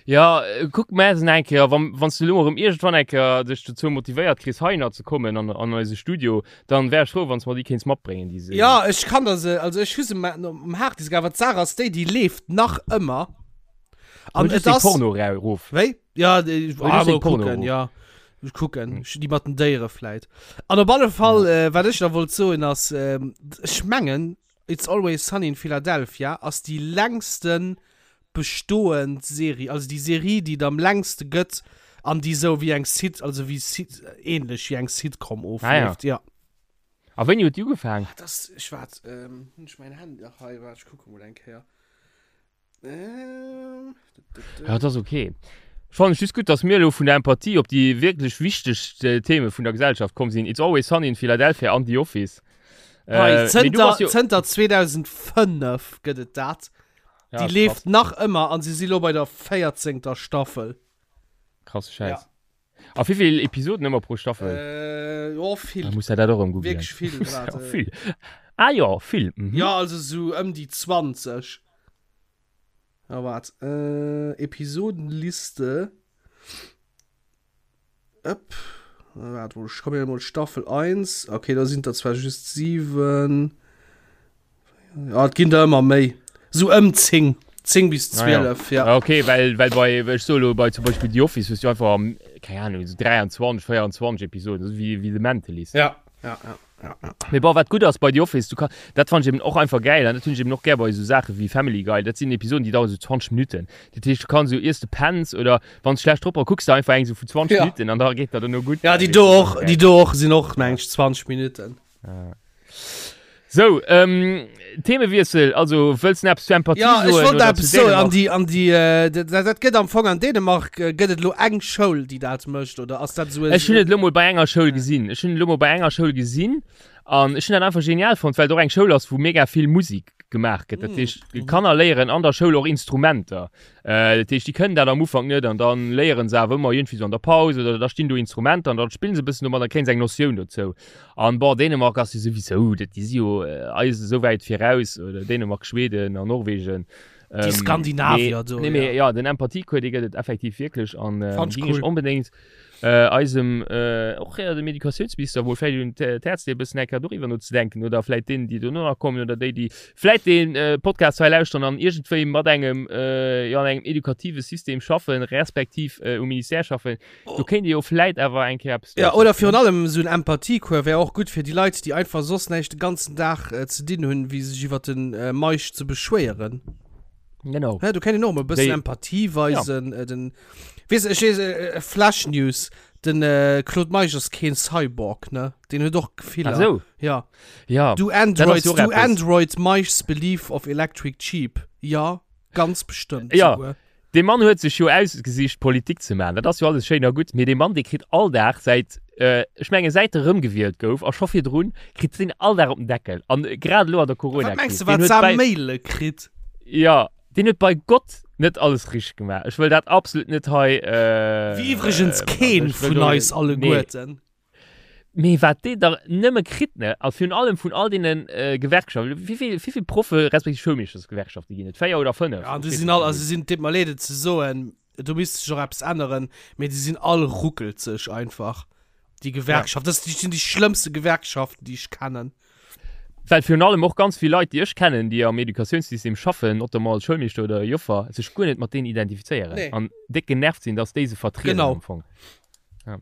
Ja, kuck mä se eng Kéier, wann, wann s du elo erëm iergendwann eng Kéier dech dozou motivéiert kriss, heihinner ze kommen an, an eise Studio, dann wär ech frou, wann s mer déi kéints matbréngen, déi Serie. Ja, ech kann der se, also ech hu se um Harddisk, awer d'Saach ass déi, déi leeft nach ëmmer. An et ass. Porno erof. Wéi? Ja, déi, ah, mol kucken, ja. Ech kucken, hm. déi mat den Déiere vläit. An op alle Fall, ja. äh, wat ech da wollt soen ass, äh, ech mengen, It's Always Sunny in Philadelphia ass déi längsten bestoend Serie, also déi Serie, déi et am längste gëtt an déi sou wéi eng Sit, also wéi Sit, ähnlech wéi eng Sitcom ofleeft, ah, ja. ja. A wéini huet déi ugefaang? Ah, das, ech waart, ähm, hunn ech mäin Handy nach hei, waart, ech kucke mol eng Kéier. Ähm, ja, das ist okay. Ich fand just gut, dass mir lo vun der Empathie op déi wierklech wichteg äh, Themen vun der Gesellschaft komm sinn. It's Always Sunny in Philadelphia an The Office. Äh, zënter, jo zënter 2005 gëtt et dat. Ja, déi leeft nach ëmmer an si si lo bei der 14. Staffel. Krasse Scheiß. Ja. A wéi vill Episoden ëmmer pro Staffel? Äh, jo, vill. Da muss er dat och erëm googlen. Wierklech vill. Ja, vill. Ah jo, vill. Mhm. Ja, also sou ëm déi 20. Ah, waart. Äh, Episodenliste. Ëpp. Waart, wo, ech komme mol Staffel 1. Okay, da sinn der zwar just 7. Ja, et ginn der ëmmer méi. Sou ëm 10. 10 bis 12, ah, ja. ja. Okay, well, well bei, ech so lo, bei zum Beispiel The Office hues du einfach, keine Ahnung, so 23, 24 Episoden, so wie, wie The Mentalist. Ja, ja, ja. Ja, ja. Mee bon, wat gutt ass bei The Office, du kann, dat fand ich eben och einfach geil, an dat hunn ech eben och gär bei esou Saache wéi Family Guy, dat sinn Episoden, déi dauern sou 20 Minutten. Dat heescht, du kanns sou, iers de penns oder wann s schlecht drop bass, kucks de einfach eng sou vu 20 Ja. Minutten an da geet dat duerno gutt. Ja, déi do och, déi do och sinn och, meng ech, 20 Minutten. Ja. So, ähm, Themewiessel, also wëlls du eppes zu Empathie Ja, ech soen wollt oder zu eppes soen. An Dänemark? déi, an déi, äh, dat, dat gëtt am Fong an Dänemark, äh, gëtt et elo eng Schoul, déi dat mécht, oder ass dat esou e. Ech hunn et elo mol bei enger Schoul gesinn. Ech hunn et elo mol bei enger Schoul gesinn an ech hunn dat einfach genial fonnt, well et och eng Schoul ass, wou mega vill Musik gemaach gëtt. Dat heescht, d'Kanner léieren an der Schoul och Instrumenter. Äh, dat heescht, déi kënnen dat am Ufank net an dann léieren se awer ëmmer iergendwéi sou an der Paus oder da stinn do Instrumenter an dann spillen se e bëssen domat, da kréien se eng Notioun dozou. An bon, Dänemark ass jo souwisou, dat, déi si jo eis esou wäit viraus, oder Dänemark, Schweden an Norwegen. Déi Skandinavier do, Nee, mee ja, den Empathiecours, dee gëtt et effektiv wierklech an Fand ech géing ech cool. onbedéngt eisem, och dem Educatiounsminister mol vläicht un d'Häerz leeën, e bëssen eng Kéier doriwwer nozedenken oder vläicht deenen, déi dono nach kommen oder déi, déi vläicht dee Podcast hei lauschteren an iergendwéi mat engem, jo, an engem edukative System schaffen, respektiv um Ministère schaffen. Do kéint ee jo vläit awer eng Kéier eppes Ja, oder virun allem esou en Empathiecours wär och gutt fir déi Leit, déi einfach soss näischt de ganzen Dag ze dinn hunn, wéi sech iwwer de Meisch ze beschwéieren. Genau. Hä, do kéint een och emol e bëssen Empathie weisen. Ja. Den, weess, ech weess, Flash News, den Claude Meisch ass keen Cyborg, ne? Deen huet och Gefiller. Ach sou. Ja. Ja. Do Androids, do Androids Meisch's belief of electric sheep? Ja, ganz bestëmmt ja. souguer. Dee Mann huet sech jo ausgesicht Politik ze maachen, dat ass jo alles schéin a gutt, mee dee Mann dee kritt all Dag säit, ech menge säit e rëmgewielt gouf a scho virdrun, kritt deen all Dag op den Deckel an grad elo an der Wat mengs Corona-Kris. de Deen wat huet sa bei, Maile kritt? jo, deen huet bei Gott net alles richteg gemaach. Ech wëll dat absolut net hei, Wéi iwwregens also keen ech wëll vun do, eis nee. alleguerten. Mee wat deen der nëmme kritt, ne? A virun allem vun all deene Gewerkschaften. Wéi vill, wéi vill Proffe respektiv Schoulmeeschtersgewerkschafte ginn et? 4 oder 5? Ja, an déi sinn all, also sinn, deet mer leed et ze soen, do misst sech och eppes änneren, mee déi sinn all ruckelzeg einfach, déi Gewerkschaften. Dat sinn déi schlëmmste Gewerkschaften, déi ech kennen. Well virun allem och ganz vill Leit, déi ech kennen, déi am Educatiounssystem schaffen, notamment als Schoulmeeschter oder Joffer, sech guer net mat deenen identifizéieren Nee. an déck genervt sinn, dass déi se vertrieden Genau. am Fong. Ja.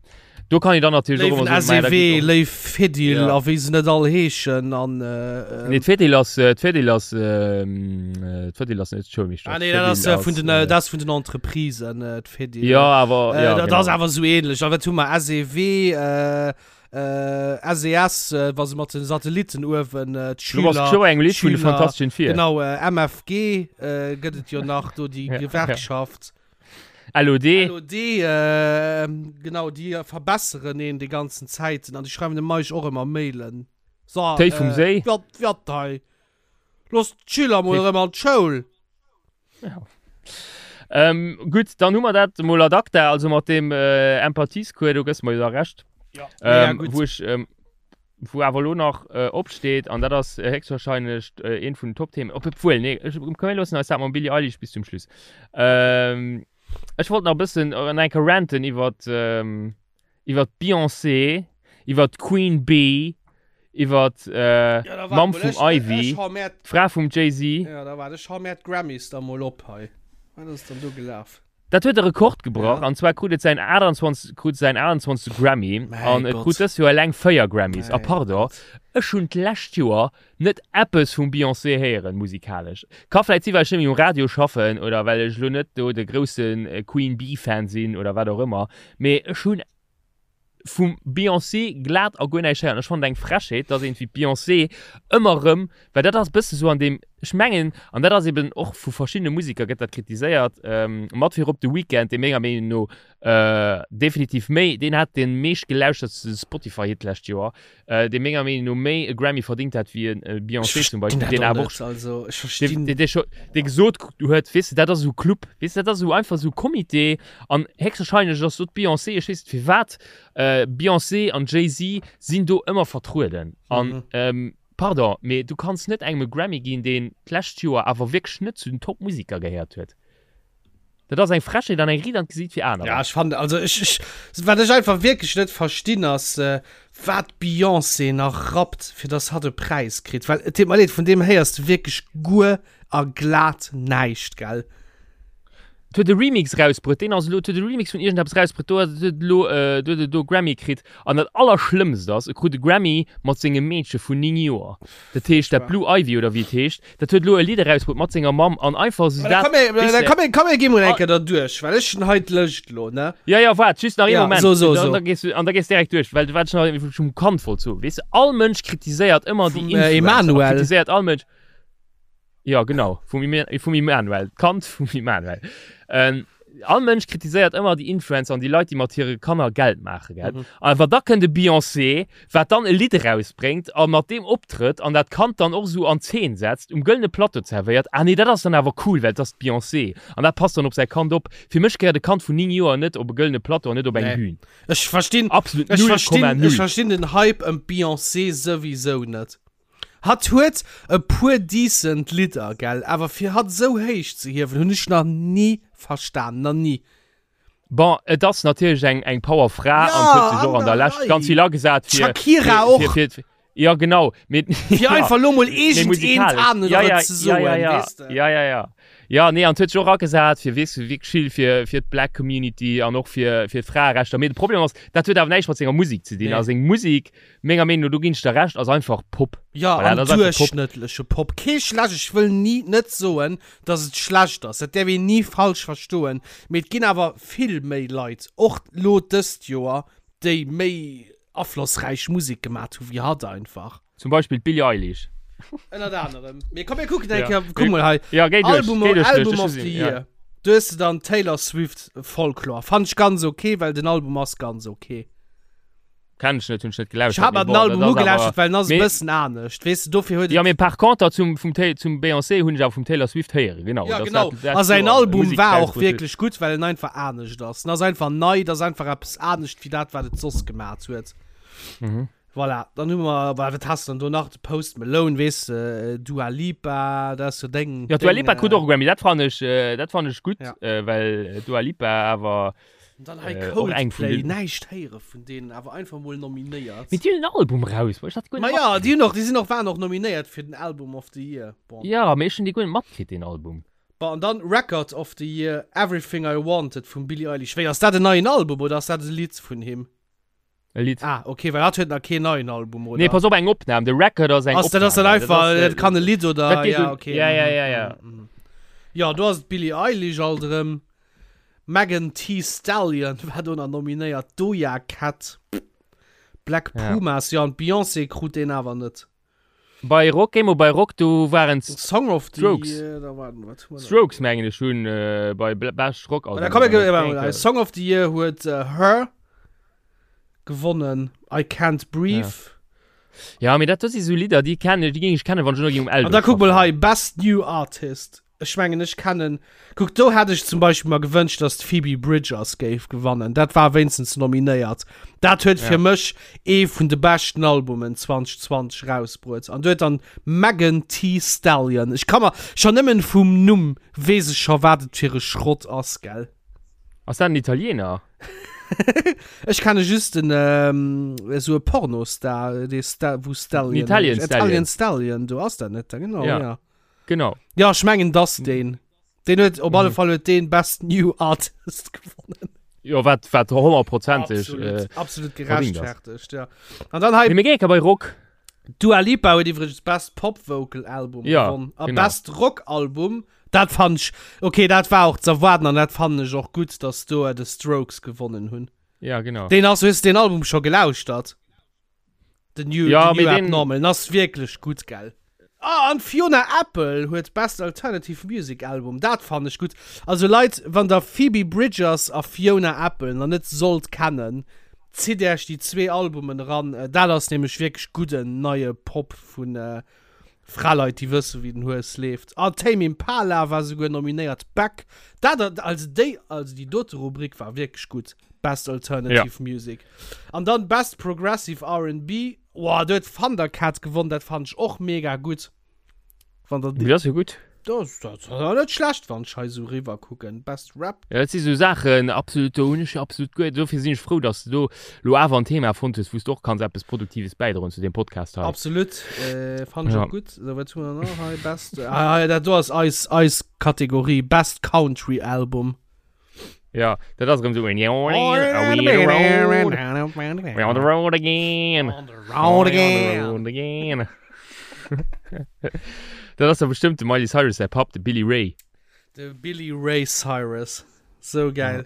Do kann ich dann natürlich och ëmmer soen, SEW, léif Fedil ja. a wéi se net all heeschen an äh, Nee, d'Fedil ass äh, d'Fedil ass ähm, äh, d'Fedil ass net d'Schoulmeeschter. Ah, nee, dat ass äh, vun den äh, dat vun den Entreprisen äh, d'Fedil. Ja, awer äh, ja, dat genau. ass awer sou ähnlech. A wat hu mer SEW äh, äh, SES, äh, wa se mat den Satellitten uewen äh, d'Schüler. Du bass scho engem Lidd vun de Fantastischen Vier. Genau, äh, MFG äh, gëtt et jo nach do déi Gewerkschaft. LOD. LOD, äh, genau, déi verbesseren een déi ganzen Zäiten an déi schreiwen dem Meisch och ëmmer Mailen. So, Téi vum Séi. Wat, wat hei? Looss d'Schüler mol erëm an d'Schoul. Ja. Ähm, gutt, dann hu mer dat mol ad acta, also mat deem äh, Empathiescours, do gëss mer jo da Recht. Ja. Ähm, ja, gutt. Wou ech, ähm, wou awer elo nach äh, opsteet, an dat ass äh, héchstwahrscheinlech äh, eent vun den Top-Themen, ob, obwuel, nee, ech, komm, mir loossen eis dat mam Billie Eilish bis zum Schluss. Ähm, ech wollt nach e bëssen äh, eng Kéier ranten iwwer ähm, iwwer d'Beyoncé, iwwer d'Queen Bee, iwwer äh, Ja, da wart Mamm mol, vum ech, Ivy, ech hau mär, d'Fra vum Jay-Z. ja, da wart, ech hau mär d'Grammys da mol op hei. Wat ass dann do gelaf? Dat huet e Rekord gebrach, an zwar krut et säin 28, krut säin 28. Grammy Mäi an et Gott. krut dëst Joer eleng 4 Grammys. A Mäi pardon, Gott. ech hunn d'lescht Joer net eppes vum Beyoncé héieren, musikalesch. Ka vläit si well ech net méi um Radio schaffen oder well ech elo net do de grousse Queen Bee Fan sinn oder wat och ëmmer, mee ech hunn vum Beyoncé glat a guer näischt héieren. Ech fannen et eng Frechheet, dass een wéi d'Beyoncé ëmmer erëm, well dat ass e bësse sou an deem, ech mengen, an dat ass eben och vu verschiddene Musiker gëtt dat kritiséiert, mat virop de Weeknd, dee menger Meenung no definitiv méi, deen hat dee meeschtgelauschtertste Spotify-Hit d'lescht Joer, dee menger Meenung no méi e Grammy verdingt hätt wéi e Beyoncé zum Beispill, deen awer och, also ech verstinn, dee, dee, dee gesot huet, weess de, dat ass esou Club, weess de, dat ass esou einfach esou Comité an héchstwahrscheinlech ass do d'Beyoncé, ech weess net firwat, Beyoncé an Jay-Z sinn do ëmmer vertrueden an mhm. pardon, mee du kanns net engem e Grammy ginn, deen d'lescht Joer awer wierklech net zu den Top-Musiker gehéiert huet. Dat ass eng Frechheet an eng Ried an d'Gesiit fir anerer. Ja, ech fannen, also ech, ech, wat ech einfach wierklech net verstinn ass, äh, wat d'Beyoncé nach rappt, fir dass hatt e Präis kritt. Well, et deet mer leed, vun deem héiers de wierklech guer a glat näischt, gell? Et huet e Remix rausbruet, deen ass elo, et huet e Remix vun iergendeppes rausbruet, do huet et elo, äh, do huet et elo e Grammy kritt. An dat Allerschlëmmst ass, e krut e Grammy mat sengem Meedche vun 9 Joer. Dat heescht, dat Blue Ivy oder wéi et heescht, Dat huet elo e Lidd erausbruet mat senger Mamm an einfach sou dat. Komm, komm, komm, gi mol eng Kéier derduerch, well ech hunn hei d'Lëscht elo, ne? Ja, ja, waart, just nach ee Ja, Moment. so, so, so. An da gees du, an da gees direkt duerch, well wat ech nach vum Kand wollt soen, weess de, all Mënsch kritiséiert ëmmer déi Vum, äh, Influencer a Emanuel. kritiséiert all Mënsch. Ja, genau, vum Ime, vum Emanuel, d'Kand vum Emanuel. Ähm, all Mënsch kritiséiert ëmmer déi Influencer an déi Leit, déi mat hire Kanner Geld maachen, gell? Mhm. Awer da kënnt e Beyoncé, wat dann e Lidd erausbréngt a mat deem optrëtt an dat Kand dann och esou an Zeen setzt, um gëllene Plateau zerwéiert, ah nee, dat ass dann awer cool, well et ass d'Beyoncé an dat passt dann op säi Kand op. Fir mech gehéiert e Kand vun 9 Joer net op e gëllene Plateau an net op eng Nee. Bühn. Ech verstinn, Absolut ech verstinn, 0,0. ech verstinn den Hype ëm d'Beyoncé souwisou net. Hatt huet e puer decent Lidder, gell, awer fir hatt esou héich ze hiewen, hunn ech nach ni verstan, nach ni. Bon, et ass natierlech eng, eng Powerfra Ja, an huet sech och an an der der Lescht Rei. ganz vill agesat fir, D'Shakira fir, och. fir, fir, ja genau, mee, Fir ja, einfach lo mol mee iergend eent musikalesch. anere Ja, ja, ze ja, soen, ja, ja, weess de. ja, ja, ja. Ja, nee, an huet sech och agesat fir, weess du, wierklech vill fir, fir d'Black Community an och fir, fir d'Fraerechter. Mee de Problem ass, dat huet awer näischt mat senger Musek ze dinn. Nee. A seng Musek, menger Meenung no, do ginn ech der Recht, ass einfach Pop. Ja, Voilà, an dat ass einfach Pop. duerchschnëttleche Pop. Kee schlecht, ech wëll ni net soen, dass et schlecht ass, dat däerf een ni falsch verstoen, mee et ginn awer vill méi Leit, och lo dëst Joer, déi méi aflossräich Musek gemat hu wéi hatt einfach. Zum Beispill d'Billie Eilish. Ënnert anerem. Mee komm mir kucken eng Ja. Kéier, kuck mol hei, Ja, géi duerch, Album, géi duerch, Album duerch, of the ja. Year. Do hues de dann Taylor Swift, Folklore. Fand ech ganz ok, well den Album ass ganz ok. Kenn ech net, hunn ech net Ech gelauschtert. hat mer mee den bon, Album dat ass awer- ugelauschtert, well en ass e Mee- bëssen anescht, weess de, dofir huet Ja, et. mee par contre zum, vum Ta zum Beyoncé hunn ech awer vum Taylor Swift héieren, genau. Ja, dass genau. dat- dat A säin Joer Album Musek war och rausbrutt huet. wierklech gutt, well en einfach anescht ass. En ass einfach nei, et ass einfach eppes anescht wéi dat, wat et soss gemat huet. Mhm. Voilà, dann hu mer, wa wat has de dann do nach? De Post Malone, weess de, Dua Lipa, dat ass jo deng. Ja, Dua deng, Lipa krut äh, och e Grammy, dat fannen ech, äh, dat fannen ech gutt, Ja. äh, well Dua Lipa awer Dann hei Äh, och eng vun Coldplay, den- näischt héiere vun deenen, awer einfach mol nominéiert. Mee déi hunn en Album raus, ech dat guer Ma net ja, matkritt. déi hunn och, déi sinn och, waren och nominéiert fir den Album of the Year. Bon. Ja, mee ech hunn dee guer net matkritt, deen Album. Bon, an dann Record of the Year, Everything I Wanted vum Billie Eilish. Wéi, ass dat en neien Album oder ass dat e Lidd vun him? E Lidd. Ah, okay, well hatt huet nach keen neien Album, oder? Nee, pass op, eng Opnam. De Record ass eng Ass dat ass dann Opnam. einfach, Dat ass, dat kann e Lidd oder, dat geet ja, un- okay. ja, ja, mhm, ja, ja. mhm, mhm. Ja, do ass d'Billie Eilish alt erëm. Megan Thee Stallion war do nach nominéiert, Doja Cat, Black Ja. Pumas, ja, an d'Beyoncé krut deen awer net. Bei Rock, géi mol bei Rock, do waren Song of the Strokes. Year, da warten, wat hu mer da? Strokes mengen ech hunn äh, bei Bl- Best Rock Album. Da komm, mir, äh, Song of the Year huet äh, Her gewonnen, I Can't Breathe. Ja, mee dat do si sou Lidder, déi kennen, déi géing ech kennen, wann ech elo géing um Eldo An da kuck mol schaffen. hei, Best New Artist. Ech mengen ech kennen, kuck do hätt ech zum Beispill mer gewënscht, dass d'Phoebe Bridgers géif gewannen. Dat war wéinstens nominéiert. Dat huet fir Ja. mech ee vun de beschten Albumen 2020 rausbruet. An do huet dann Megan Thee Stallion, ech ka mer scho nëmmen vum Numm weess ech scho wat et fir e Schrott ass, gell? Ass dat en Italiener? Ech kenne just den esou e Pornostar, dee Sta wou Stallion Italian heescht. Stallion. Italian Stallion, do ass dat net, genau, Ja. ja. Genau. Ja, ech mengen dass deen. Deen huet op alle Fall huet deen Best New Artist gewonnen. Jo, wat, wat honnertprozenteg. Absolut, Äh, absolut verdient ass. gerechtfertigt, ja. An dann hei nee, mir géinge bei Rock. Dua Lipa huet iwwregens Best Pop Vocal Album Ja, gewonnen. A genau. Best Rock Album, dat fand ech, okay, dat war och ze erwaarden an dat fannen ech och gutt, dass do The Strokes gewonnen hunn. Ja, genau. Deen ass, hues de deen Album scho gelauschtert? Den New, Ja, den New mee den- Abnormal, den ass wierklech gutt, gell? Ah, an Fiona Apple huet Best Alternative Music Album, dat fannen ech gutt. Also Leit, wann der Phoebe Bridgers a Fiona Apple nach net sollt kennen, zitt äerch déi zwee Albumen eran, dat ass nämlech wierklech gudden neie Pop vun Fraleit, déi wëssen, wéi den Hues leeft. Ah, Tame Impala war souguer nominéiert, Beck, dat, also déi, also déi dote Rubrik war wierklech gutt, Best Alternative Music. An dann Best Progressive R&B, Woah, do huet Thundercat gewonnen, dat fand ech och mega gutt. Wann der Dat ass jo gutt. Dat ass net schlecht, wann ech hei esou riwwer kucken. Best Rap. Ja, dat si sou Saachen, absolut, do hunn ech jo absolut guer, dofir sinn ech frou, dass de do lo awer en Thema fonnt hues, wou s de och kanns eppes Produktives bäidroen zu deem Podcast hei. Absolut, äh, fand ech Ja. och gutt. So, wat hu mer nach hei? Best, ah, ah, dat do ass eis, eis Kategorie, Best Country Album. Ja, dat ass erëm sou en We on the road again. On the road again. On the road again. Dat ass da bestëmmt de Miley Cyrus säi Papp, de Billy Ray. De Billy Ray Cyrus. So geil.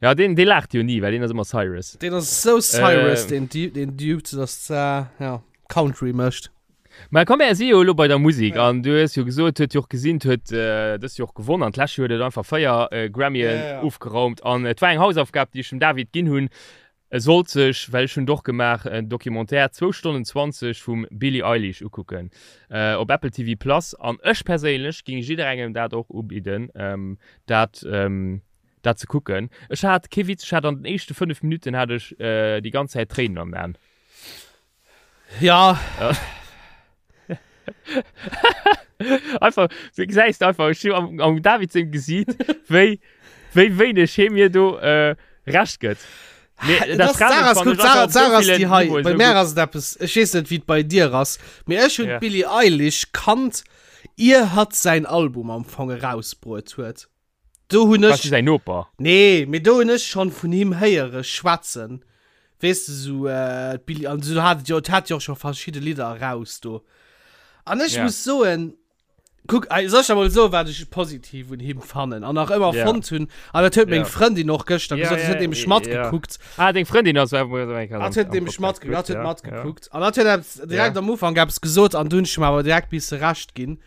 Ja, deen, dee laacht jo ni, well deen ass ëmmer Cyrus. Deen ass sou Cyrus, Äh. deen Dude, deen Dude, dass, äh, ja, Country mécht. Mä komm, mär si jo elo bei der Musek an du hues jo gesot, huet jo och gesinn, huet dëst Joer och gewonnen an d'lescht Joer huet et einfach 4 Grammyen ofgeraumt an et war eng Hausaufgab, déi ech dem David ginn hunn, e sollt sech, well ech hunn et och gemaach, en Documentaire, zwou Stonnen 20 vum Billie Eilish ukucken op Apple TV Plus an ech perséinlech géing jidderengem dat och ubidden, dat dat ze kucken. Ech hat, kee Witz, ech hat an den éischte 5 Minutten hat ech déi ganz Zäit Tréinen an den Aen. Ja. Einfach, du gesäis einfach ech am, am David sengem Gesiit, wéi, wéi wéineg hie mir do äh, Recht gëtt. Mee Dat dat ass, Sarah, fannen guck, ech Sarah, einfach op so Sarah ass villen déi hei. Niveaue Bei sou mär gutt. ass et eppes, ech weess net, wéi et bei dir ass, mee ech hunn Ja. d'Billie Eilish kannt, ier hatt säin Album am Fong erausbruet huet. Do hunn Warst ech. du säin Noper? Nee, mee do hunn ech schonn vun him héiere schwätzen. Weess de, sou d'Billie, an sou hat et jo, et hat jo och scho verschidde Lidder eraus do. An ech Ja. muss soen, kuck, soll ech der mol soen, wat ech positiv un him fannen an nach ëmmer Ja. fonnt hunn, an dat huet meng Ja. Frëndin och gëschter Ja, gesot, dat ja, huet nämlech ja. matgekuckt. Ah, deng Frëndin ass Hat huet nämlech matgekuckt, hat huet Ja, matgekuckt. An hat huet eppes direkt Ja. am Ufank eppes gesot an du hunn ech him awer direkt misse Recht ginn.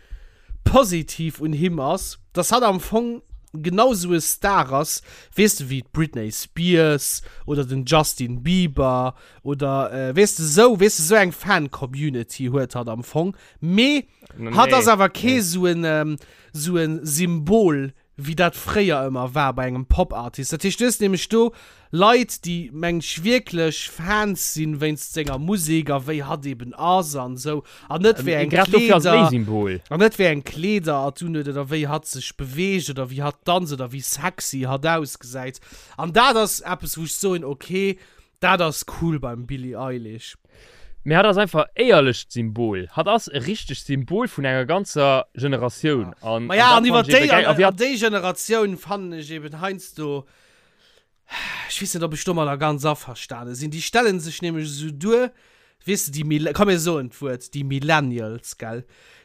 Positiv un him ass, dass hatt am Fong genau sou e Star ass, weess de, wéi d'Britney Spears oder den Justin Bieber oder weess de sou, weess de, sou eng Fan-Community huet hatt am Fong, mee hatt ass awer kee sou en, sou e Symbol wéi dat fréier ëmmer war bei engem Pop-Artist. Dat heescht, du hues nämlech do Leit, déi, meng ech, wierklech Fans sinn wéinst senger Musek a wéi hatt eben ass an esou, an net wéi eng Grad dofir ass et méi Kleeder, Symbol. an net wéi eng Kleeder hatt unhuet oder wéi hatt sech beweegt oder wéi hatt danzt oder wéi sexy hatt ausgesäit. An dat ass eppes, wou ech soen, okay, dat ass cool beim Billie Eilish. Mee hatt ass einfach éierlecht Symbol. Hatt ass e richtegt Symbol vun enger ganzer Generatioun. An, Ma ja, an iwwer déi, an, an déi Generatioun fannen ech eben heiansdo, ech weess net, ob ech domadder ganz averstane sinn. Déi stellen sech nämlech esou duer, weess de, déi Mille, komm mir soen d'Wuert, déi Millennials, gell,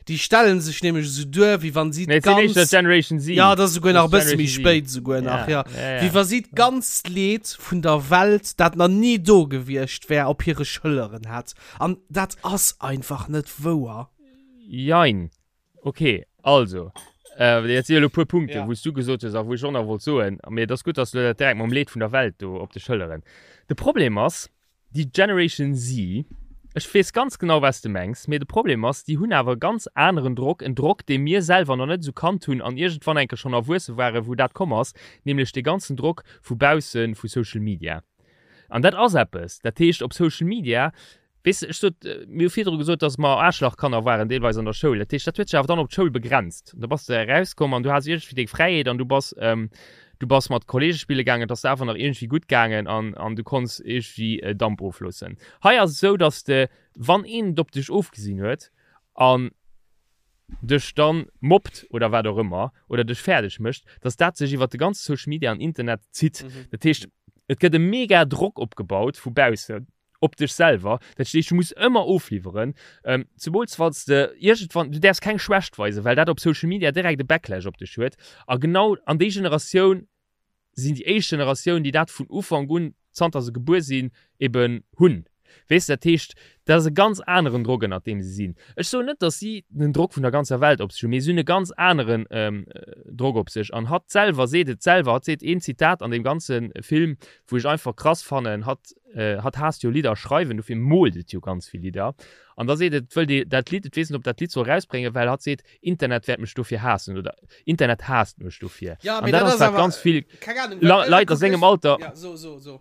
déi stellen sech nämlech esou duer, wéi wann si Nee, et sinn d'ganz, éischter Generation Z. ja, dat ass esouguer nach e Das bësse méi Generation Z. spéit esouguer nach, Ja, ja, ja, ja. wéi wa si d'ganzt Leed vun der Welt, dat nach ni do gewiescht wär, op hire Schëlleren hätt. An dat ass einfach net wouer. Jein. Ok, also, äh, jetzt si elo puer Punkte, Ja. wou s du gesot hues a wou ech och nach wollt soen, mee et ass gutt, dass du dat direkt mam Leed vun der Welt do op de Schëlleren. De Problem ass, Déi Generation Z, ech weess ganz genau wat s de mengs, mee de Problem ass, déi hunn awer e ganz aneren Drock, en Drock, dee mir selwer nach net esou kannt hunn an iergendwann eng Kéier schonn erwuesse waren, wou dat komm ass, nämlech dee ganzen Drock vu bausse vu Social Media. An dat ass eppes, dat heescht op Social Media, weess de, ech sot, mir hu virdru gesot, datt mer Aarschlachkanner waren deelweis an der Schoul, dat heescht, dat huet sech awer dann op d'Schoul begrenzt. Da bass de erauskomm an du has iergendwéi deng Fräiheet an du bass, Du bass mat Kollege spille gaangen, et ass der awer nach iergendwéi gutt gaangen an, an du konns iergendwéi Damp ofloossen. Hei ass et esou, dass de, wann een et op dech ofgesinn huet an dech dann mobbt oder wat och ëmmer oder dech fäerdeg mécht, dass dat sech iwwert de ganze Social Media an Internet zitt. Dat heescht, et gëtt e mega Drock opgebaut vu baussen. op dech selwer, dat heescht du muss ëmmer ofliwweren, ähm, zemools wann s de iergendwann, du däerfs keng Schwächt weisen, well dat op Social Media direkt e Backlash op dech huet a genau an déi Generatioun sinn déi éischt Generatioun, déi dat vun Ufank un, zanter se gebuer sinn, eben hunn, weess de. Dat heescht, dat ass e ganz aneren Drock ënnert deem se sinn. Ech soen net, datt si den Drock vun der ganzer Welt op sech hunn, mee si hunn e ganz aneren Drock op sech an hatt selwer seet et selwer, hatt seet een Zitat an deem ganze Film, wou ech einfach krass fannen, hatt hatt haasst jo Lidder schreiwen, dofir moolt et jo ganz vill Lidder an da seet et, et wëllt ee dat Lidd, et weess net ob dat Lidd soll rausbréngen, well hatt seet, Internet wäert mech dofir haassen oder Internet haasst mech dofir. Ja, An mee dat dat ass ass wat awer, ganz vill keng Ahnung, well Leit a kuck sengem ech, Alter, ja, so, so, so.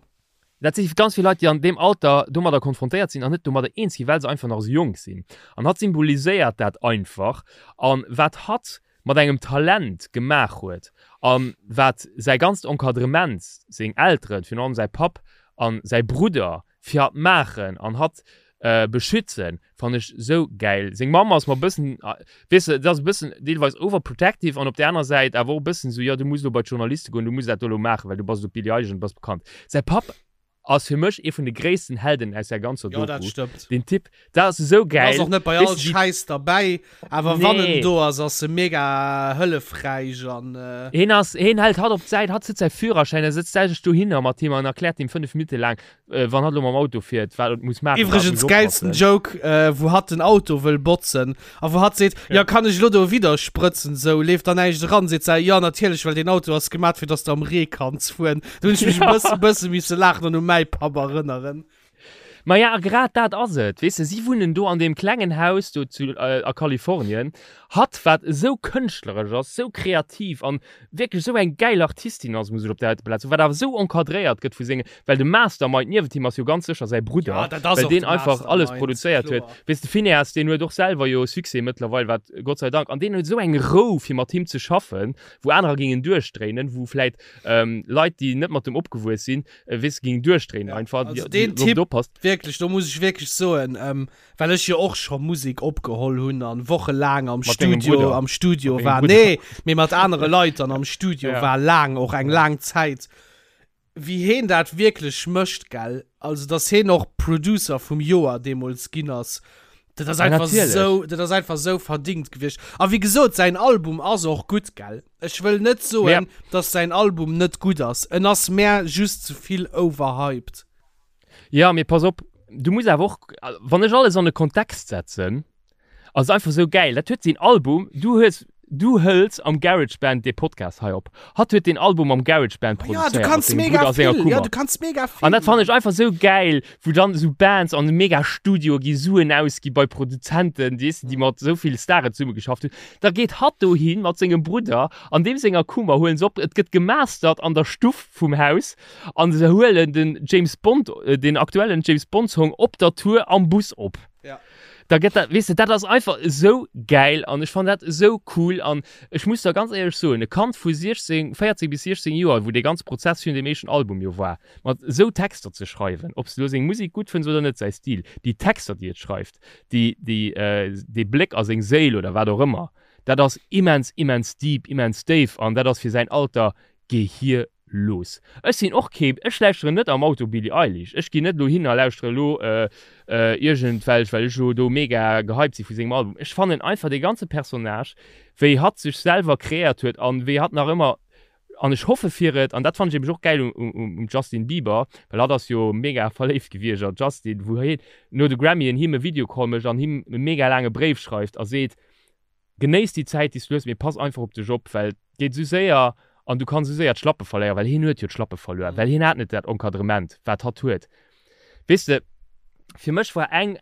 dat si ganz vill Leit, déi an deem Alter domadder konfrontéiert sinn an net domadder eens ginn, well se einfach nach esou jonk sinn. An hatt symboliséiert dat einfach an wat hatt mat engem Talent gemaach huet a wat säi ganzt Encadrement, seng Elteren, virun allem säi Papp a säi Brudder fir hatt maachen an hatt beschützen, fannen ech sou gäil. Seng Mamm ass mer e bëssen, weess de, et ass e bëssen deelweis overprotective an op där aner Säit awer och e bëssen esou, jo du muss elo bei d'Journaliste goen, du muss dat do elo maachen, well du bass elo d'Billie Eilish an du bass bekannt. Säi Papp Ass fir mech ee vun de gréissten Helden aus der ganzer Jo, dat Doku. stëmmt. Den Typ, dat ass esou En gäil. ass och net bei all Weess de, déi. Schäiss derbäi, awer wann en Nee. do ass, ass e mega hëllefräich an. Heen ass, heen hält hatt op d'Säit, hatt sëtzt säi Führerschäin, e sëtzt sech dohinner mat him an erkläert him 5 Minutte laang, wann hatt elo mam Auto fiert, wat et muss maachen, wat et Iwwregens muss gäilsten oppassen. Joke, wou hatt den Auto wëll botzen a wou hatt seet, Ja. Jo, kann ech elo do widder sprëtzen, sou leeft da näischt eran? Seet se, Jo, natierlech, well deen Auto ass gemat fir dass de am Ree kanns fueren. Do hunn ech mech e bësse, bësse misse laachen an u mäi Papp erënneren. Maja, a grad dat ass et, weess de, si wunnen do an deem klengen Haus do zu, a Kalifornien. Hatt, wat esou kënschtleresch ass, esou kreativ an wierklech esou eng gäil Artistin ass, muss ech op där heite Plaz soen, wat awer esou encadréiert gëtt vu senge, well de Mastermind niewent him ass jo ganz sécher säi Brudder, Ja, dat ass well och deen de einfach alles Mastermind, produzéiert huet. kloer. Weess de, Finneas, deen huet och selwer jo Succès mëttlerweil, wat Gott sei Dank, an deen huet esou eng Rou fir mat him ze schaffen, wou anerer gingen duerchdréinen, wou vläit Leit, déi net mat dem opgewuess sinn, weess de, gingen duerchdréinen Ja, einfach, also déi, deen déi, wou Typ, oppasst. wierklech, do muss ech wierklech soen, ähm, well ech jo och scho Musek opgeholl hunn an wochelaang am Mat dengem Studio, Brudder. am Studio Mat dengem war, Brudder. nee, mee mat anere Leit dann am Studio Ja. war, laang, och eng Ja. laang Zäit, wéi heen dat wierklech mécht, gell, also dass heen och Producer vum Joer deemools ginn ass, dat ass Ja, einfach natierlech. sou, dat ass einfach sou verdingt gewiescht. A wéi gesot, säin Album ass och gutt, gell. Ech wëll net soen, Mä. dass säin Album net gutt ass, en ass mär just ze vill overhyped. Ja, mee pass op, du muss awer och, wann ech alles an e Kontext setzen, ass et einfach sou gäil. Dat huet seen Album, du hues, du hëls am GarageBand dee Podcast hei op. Hatt huet deen Album am GarageBand Oh ja, du produzéiert mat kanns sengem mega Brudder a senger vill, ja, Kummer. du kanns mega An vill dat fannen man. ech einfach sou gäil, wou dann esou Bands an mega Studioe gi Suen ausgi bei Produzenten, weess de, déi mat esou vill Staren zesummegeschafft hunn. Da geet hatt dohi mat sengem Brudder an deem senger Kummer, huelen se op, et gëtt gemastert an der Stuff vum Haus an se huelen den James Bond, den aktuellen James Bond Song op der Tour am Bus op. Ja. Da gëtt dat, weess de, dat ass einfach esou gäil an ech fannen dat esou cool an ech muss der ganz éierlech soen, e Kand vu 16, 14 bis 16 Joer, wou dee ganze Prozess virun deem éischten Album jo war, mat esou Texter ze schreiwen, ob s de elo seng Musek gutt fënns oder net, säi Stil, déi Texter, déi et schreift, déi, déi, dee Bléck a seng Séil oder wat och ëmmer, dat ass immens, immens deep, immens déif an dat ass fir säin Alter Gehir Los. Ech sinn och kee, ech lauschteren net am Auto Billie Eilish. Ech ginn net elo hin a lauschtere elo iergendwelch, well ech elo do mega gehypt si vu sengem Album. Ech fannen einfach dee ganze Personnage, wéi hatt sech selwer kreéiert huet an wéi hatt nach ëmmer, an ech hoffe fir et, an dat fannen ech eben och gäil um Justin Bieber, well hatt ass jo mega verléift gewiescht a Justin, wou hien no de Grammyen him e Videocall mécht an him e mega laange Bréif schreift a seet, Genéiss déi Zäit déi s du hues, mee pass einfach op dech op, well et geet esou séier an du kanns esou séier d'Schlappe verléieren, well hien huet jo d'Schlappe verluer, well hien hat net dat Encadrement wat hatt huet. Weess de, fir mech war eng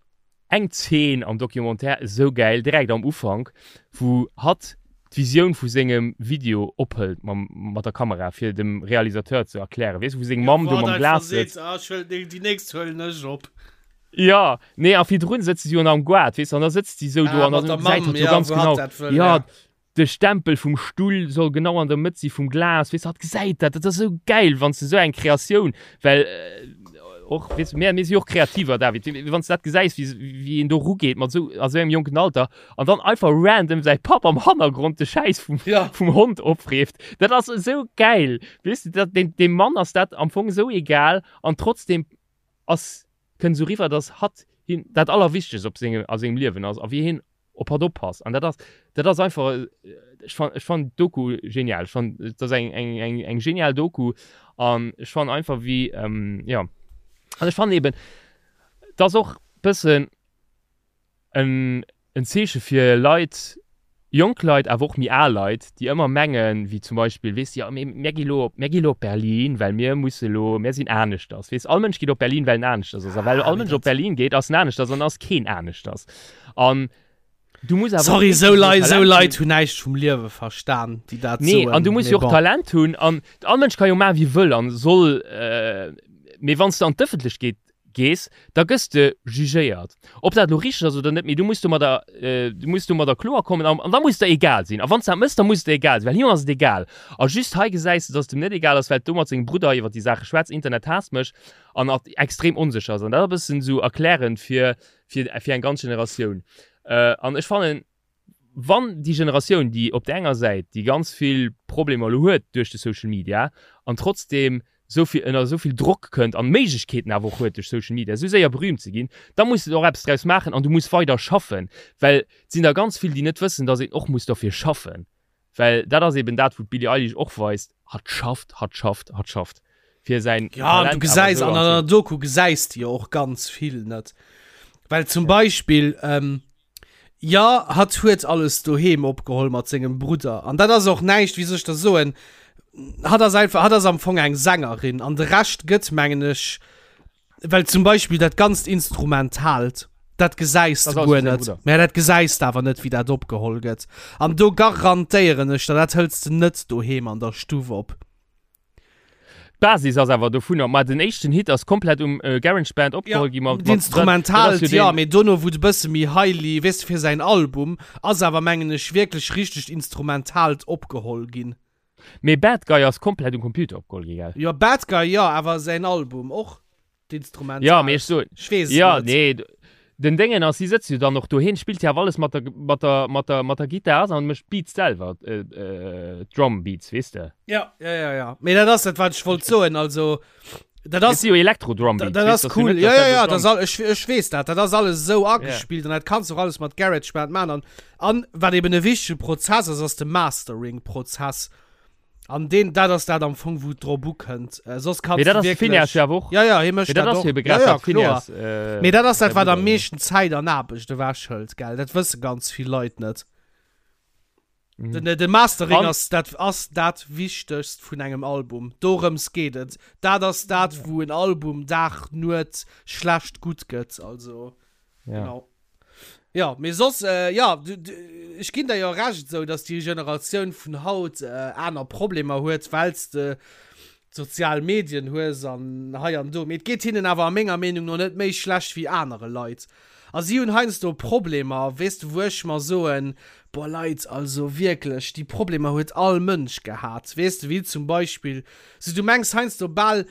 eng Zeen am Documentaire esou gäil, direkt am Ufank, wou hatt d'Visioun vu sengem Video ophëlt mam mat der Kamera fir dem Realisateur ze erklären, weess de, wou seng Mamm do mam Glas sëtzt. Ah, ech huelen déi nächst huelen ech op. Jo, nee, a virdrun sëtze si jo nach am Goart, weess de, an da sëtzt si sou do Ah, an mat da der gesäit Mamm, hatt jo ja, ganz wou hatt genau, dat wëll, jo, ja. de Stempel vum Stull soll genau an der Mëtt si vum Glas, weess de, hatt gesäit dat, dat ass esou gäil, wann s de sou eng Kreatioun, well och, weess de, mir, mir si jo och Kreativer, David, wann s de dat gesäis, wéi, wéi een do erugeet mat sou, a sou engem jonken Alter an dann einfach random säi Papp am Hannergrond de Schäiss vum, Ja. vum Hond opfreeft, dat ass esou gäil, weess de, dat, deem, deem Mann ass dat am Fong esou egal an trotzdem ass, kënnt esou riwwer, dass hatt him dat Allerwichtegst op sengem, a sengem Liewen ass a wéi hien op hatt oppasst. An dat ass, dat ass einfach, ech fan, ech fannen d'Doku genial. Ech fannen, et ass eng, eng, eng, eng genial Doku an ech fannen einfach wéi, jo, an ech fannen eben, et ass och bëssen, en en Zeeche fir Leit, jonk Leit, awer och méi al Leit, déi ëmmer mengen, wéi zum Beispill, weess de, jo, mee mär gi lo op, mär gi lo op Berlin, well mir musse lo, mär sinn aneschters. Weess, all Mënsch geet op Berlin, well en aneschters ass. A well all Mënsch op Berlin geet, ass en aneschters an ass keen aneschters. An du muss awer och Sorry, esou wierklech Leit, esou Talent Leit hunn. hunn näischt vum Liewe verstan, déi dat Nee, soen. an du muss Mee jo och bon. Talent hunn. An all Mënsch ka jo maachen, wéi e wëll an soll, mee wann s de an d'Ëffentlechkeet gees, da gëss de jugéiert. Ob dat elo richteg ass oder net, mee du muss domadder, du muss domadder kloer kommen an da muss et der egal sinn. A wann s de dat méchs, da muss et der egal sinn, well him ass et egal. A just hei gesäis de, dass et em net egal ass, well et do mat sengem Brudder iwwer déi Saache schwätzt, Internet haasst mech, an et extrem onsécher ass. An dat ass e bëssen esou erklärend fir, fir, fir eng ganz Generatioun. An ech fannen, wann déi Generatioun, déi op där enger Säit déi ganz vill Problemer elo huet duerch de Social Media an trotzdeem esou vill ënner esou vill Drock kënnt an Méiglechkeeten awer och huet duerch Social Media esou séier berühmt ze ginn, da muss de och eppes draus maachen an du muss weider schaffen, well et sinn der ganz vill, déi net wëssen, datt een och muss derfir schaffen, well dat ass eben dat wou d'Billie Eilish och weist, hatt schafft, hatt schafft, hatt schafft fir säin Ja, an du Talent awer gesäis esou an an der anzesinn. Doku gesäis de jo och ganz vill net, well zum Beispill, Jo, hatt huet alles doheem opgeholl mat sengem Brudder. An dat ass och näischt, wéi soll ech der soen, hatt ass einfach, hatt ass am Fong eng Sängerin an de Rescht gëtt, mengen ech, well zum Beispill dat ganzt Instrumentaalt, dat gesäis de guer net. Mä dat gesäis de awer net, wéi dat opgeholl gëtt. An do garantéieren ech der, dat hëls de net doheem an der Stuff op. D'Basis ass awer dovunner, ma den éischten Hit ass komplett um GarageBand opgeholl Ja, gi mat, mat, d'Instrumentaalt, dat ass jo jo, deen, mee dono wou de bësse méi highly, weess de, fir säin Album ass awer mengen ech wierklech richtegt Instrumentaalt opgeholl ginn. Mee Bad Guy ass komplett um Computer opgeholl gi, gell? Jo, Bad Guy jo, awer säin Album och. D'Instrumental. Ja, mee ech soen. Ech weess et Ja, net. nee, den Déngen ass, si sëtzt jo dann och do, hien spillt jo awer alles mat der, mat der, mat der, mat der Gittar an mécht d'Beats selwer, d'Drum Beats, weess de. Ja, ja, ja, ja. Mee dat ass dat, wat ech wollt soen, also, dat Et ass. si jo Elektro-Drum Beats, Dat weess ass de, ass jo cool. net, Ja, dass ja, dat ja, do dat ass Drum. all, ech, ech weess dat. Dat ass alles esou agespillt an dat kanns du och alles mat GarageBand maachen. An, an wat eben e wichtege Prozess ass, ass de Mastering-Prozess. An deen, dat ass dat am Fong, wou et drop ukënnt. Äh, soss kanns Mee dat du ass de wierklech. Phineas jo awer och. Ja, ja, hie mécht Mee dat dat ass och. jo ebe Ja, grad ja, dat kloer. Phineas, äh, Mee dat ass säi dat, wat am Brudder. meeschten Zäit an Aarbecht ewechhëlt, gell? Dat wësse ganz vill Leit net. Mhm. Den, de Mastering An, ass dat, ass dat Wichtegst vun engem Album. Dorëms geet et. Dat ass dat, wou en Album Dag, Nuet schlecht, gutt gëtt. Also, ja. genau. Jo, mee soss, jo, ech ginn der jo Recht esou, dass déi Generatioun vun haut aner Problemer huet, well s de d'sozial Medien hues an hei an do. Mee et geet hinnen awer a menger Meenung no net méi schlecht wéi anere Leit. A si hunn heiansdo Problemer, weess de, wou ech mer soen, Boah Leit, also wierklech, déi Problemer huet all Mënsch gehat, weess de, wéi zum Beispill, sou du mengs heiansdo bal,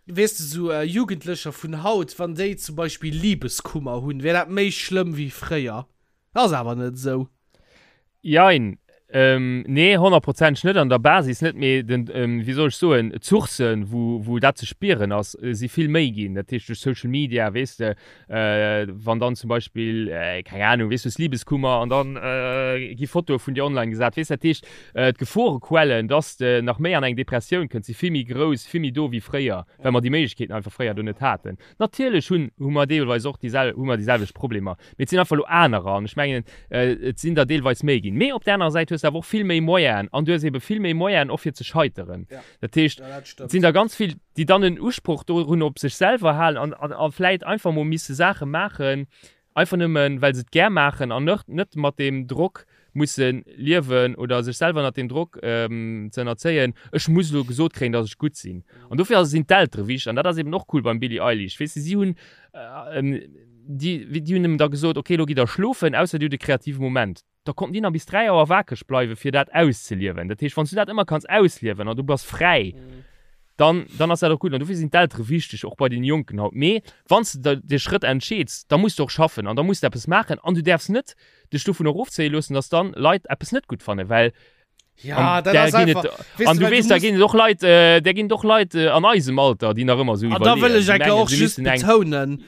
weess de, sou Jugendlecher vun haut, wann déi zum Beispill Libeskummer hunn, wär dat méi schlëmm wéi fréier. Ass awer net esou. Jein. Nee, honnertprozenteg net, an der Basis net, mee den, wéi soll ech soen, d'Sourcen, wou, wou dat ze spieren ass, si vill méi ginn. Dat heescht duerch Social Media, weess de, wann dann zum Beispill, keng Ahnung, weess du, hues Libeskummer an dann gi Fotoe vun dir online gesat, weess. Dat heescht, d'Geforequellen, dass de nach méi an eng Depressioun kënns, si vill méi grouss, vill méi do wéi fréier, well mer déi Méiglechkeeten einfach fréier do net haten. Natierlech hunn, hu mer deelweis och déi sel, hu mer déi selwecht Problemer, mee et sinn einfach elo anerer an ech mengen, et sinn der deelweis méi ginn. Mee op där anerer Säit hues de awer och vill méi Moyenen an du hues ebe vill méi Moyenen och fir ze scheiteren. Dat heescht, et sinn der ganz vill, déi dann en Usproch dorun op sech selwer halen an, an, a vläit einfach mol misse Saache maachen, Einfach nëmmen, well se et gär maachen an net mat deem Drock musse liewen oder sech selwer ënnert deem Drock ze ënnerzéien, ech muss elo gesot kréien, datt ech gutt sinn. An dofir sinn d'Eltere wichteg an dat ass eben och cool beim Billie Eilish, weess de, si hunn déi hunn ëm da gesot, okay, elo gitt der schlofen, ausser dir hutt e kreative Moment. Da konnten déi nach bis 3 Auer wakeg bleiwen, fir dat auszeliewen. Dat heescht, wann s du dat ëmmer kanns ausliewen an du bass fräi, dann, dann ass dat och gutt. An dofir sinn d'Eltere wichteg, och bei den Jonken haut. Mee wann s de de Schrëtt entscheeds, da muss de och schaffen an da muss de eppes maachen an du däerfs net dech dovun erofzéie loossen, dass dann Leit eppes net gutt fannen, well Ja, an dat ass einfach. Et, an du weess, da ginn et och Leit, äh, der ginn et och Leit äh, an eisem Alter, déi nach ëmmer sou iwwerleeën. Da wëll ech enke och just betounen,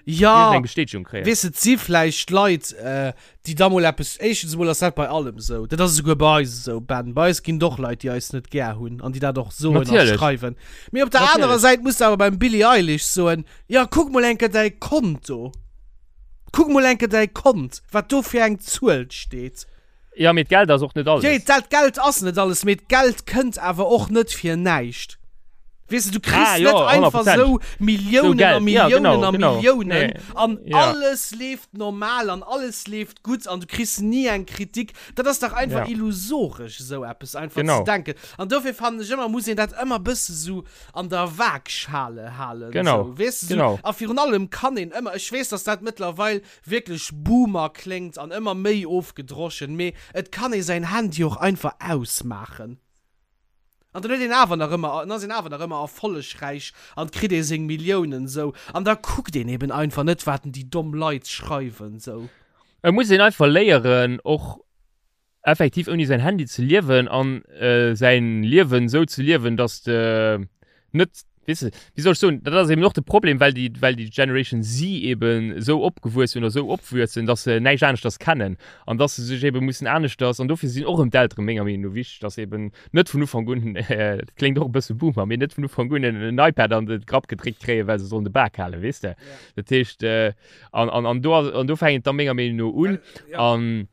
ja, eng Bestätegung kréien. Weess et si vläicht Leit, äh, déi da mol eppes, éischtens emol ass dat bei allem sou, dat ass esouguer bei eis esou, Ben, bei eis ginn et och Leit, déi eis net gär hunn an déi dat och soen a schreiwen. Mee op der anerer Säit muss de awer beim Billie Eilish soen, ja kuck mol enke däi Konto, kuck mol enke däi Kont, wat do fir eng Zuel steet. Ja, mee d'Geld ass och net alles. Jee, dat Geld ass net alles, mee d'Geld kënnt awer och net fir näischt. Weess de, du kriss ah, net einfach sou Milliounen a Milliounen ja, genau, a genau. Milliounen nee. an ja. alles leeft normal an alles leeft gutt an du kriss ni eng Kritik. Dat ass dach einfach ja. illusoresch, sou eppes einfach genau. ze denken. An dofir fannen ech ëmmer, muss een dat ëmmer bësse sou an der Waagschale halen. Genau. Sou, weess de, sou. Genau. A virun allem kann een ëmmer, ech weess, dass dat mëttlerweil wierklech Boomer kléngt an ëmmer méi ofgedroschen, mee et kann ee säin Handy och einfach ausmaachen. An dann huet een awer nach ëmmer, dann ass een awer nach ëmmer erfollegräich an kritt ee seng Milliounen sou. An da kuckt een eben einfach net wat déi domm Leit schreiwen sou. Et muss een einfach léieren och effektiv ouni säin Handy ze liewen an säin Liewen esou ze liewen, dass de net, weess de, wéi soll ech soen, dat ass eben och de Problem, well déi, well déi Generation Z eben esou opgewuess hunn oder esou opwuessen, dass se näischt aneschters kennen an dass se sech eben mussen aneschters, an dofir sinn och erëm d'Eltere menger Meenung no wichteg, dass eben net vun Ufank un, dat kléngt och e bësse Boomer, mee net vun Ufank un en iPad an de Grapp gedréckt kréien, well se sollen de Bak halen, weess de. Dat heescht, an, an, an do ass, an do fänkt et da menger Meenung no un an.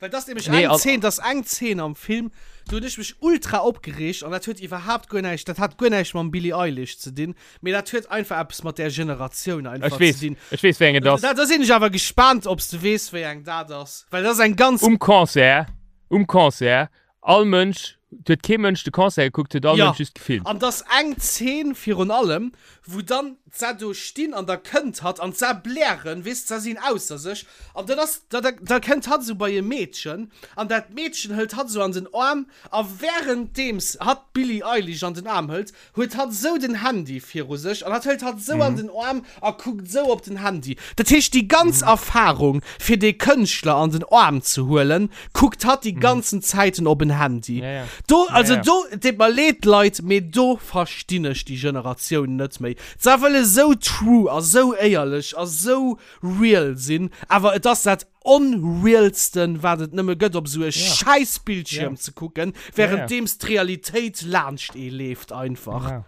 Well das nämlech nee, eng Szene, das eng Szene am Film, do hunn ech mech ultra opgereegt an dat huet iwwerhaapt guer näischt, dat hat guer näischt mam Billie Eilish ze dinn, mee dat huet einfach eppes mat där Generatioun einfach ech weess, ze dinn. Ech weess, wéi eng et ass. Da, da sinn ech awer gespaant, ob s de weess, wéi eng dat ass, well dat ass eng ganz. Um Concert, um Concert, all Mënsch, et huet kee Mënsch de Concert gekuckt, huet all Ja, Mënsch just gefilmt. an dass eng Zeen virun allem, wou dann d'Sa do stinn an da kënnt hatt an d'Sa blären, weess, d'Sa sinn ausser sech an dann ass, da, da, da kënnt hatt esou bei e Meedchen an dat Meedchen hëlt hatt esou an den Aarm a wärenddeems hatt d'Billie Eilish an den Aarm hëlt, huet hatt esou den Handy viru sech an hatt hëlt hatt esou an den Aarm a kuckt esou op den Handy. Dat heescht, déi ganz Erfahrung, fir dee Kënschtler an den Aarm ze huelen, kuckt hatt déi ganzen Zäiten op en Handy. Do, also do, et deet mer leed, Leit, mee do verstinn ech déi Generatioun net méi. Se wëlle esou true a sou éierlech a sou real sinn, awer et ass dat Onrealsten wat et nëmme gëtt op esou e schäiss Bildschierm ze kucken, währenddeems d'Realitéit laanscht ee leeft einfach.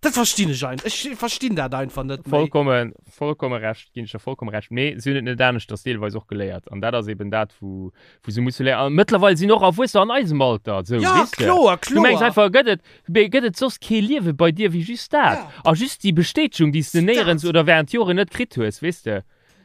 Dat verstinn ech ein, ech verstinn dat einfach net méi. Vollkommen, vollkomme Recht, ginn ech der vollkomme Recht. Mee si hunn et net aneschters deelweis och geléiert. An dat ass eben dat, wou, wou se musse léieren. A mëttlerweil sinn och Erwuessener an eisem Alter esou, Ja, weess de. kloer, Du mengs kloer. einfach, gëtt et, mee gëtt et soss kee Liewe bei dir wéi just dat? Ja. A just déi Bestätegung, déi s de Dat. néierens oder während Joren net kritt hues, weess de.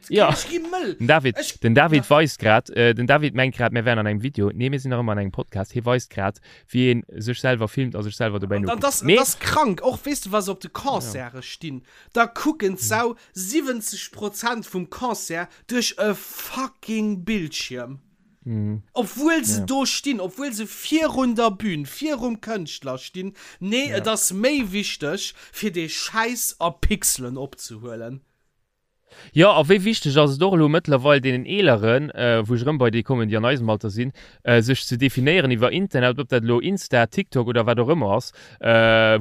Ja. Ech gi mëll. Den David, Ech- den David weist grad, äh, den David mengt grad, mir wären an engem Video. Nee, mir sinn nach ëmmer an engem Podcast. Hie weist grad, wéi een sech selwer filmt a sech selwer dobäi An nokuckt. das, Mee, das krank. Och weess du, wa se op de Concerte stinn, da kucken d'Sau 70 Prozent vum Concert duerch e fucking Bildschierm. Obwuel se do stinn, obwuel se virun der Bühn, virum Kënschtler stinn. Nee, et ass méi wichteg, fir dee Schäiss a Pixelen opzehuelen. Jo, a wéi wichteg ass et och elo mëttlerweil deenen Eeleren, wou ech erëm bei déi kommen, déi an eisem Alter sinn, sech ze definéieren iwwer Internet, ob dat elo Insta, TikTok oder wat och ëmmer ass,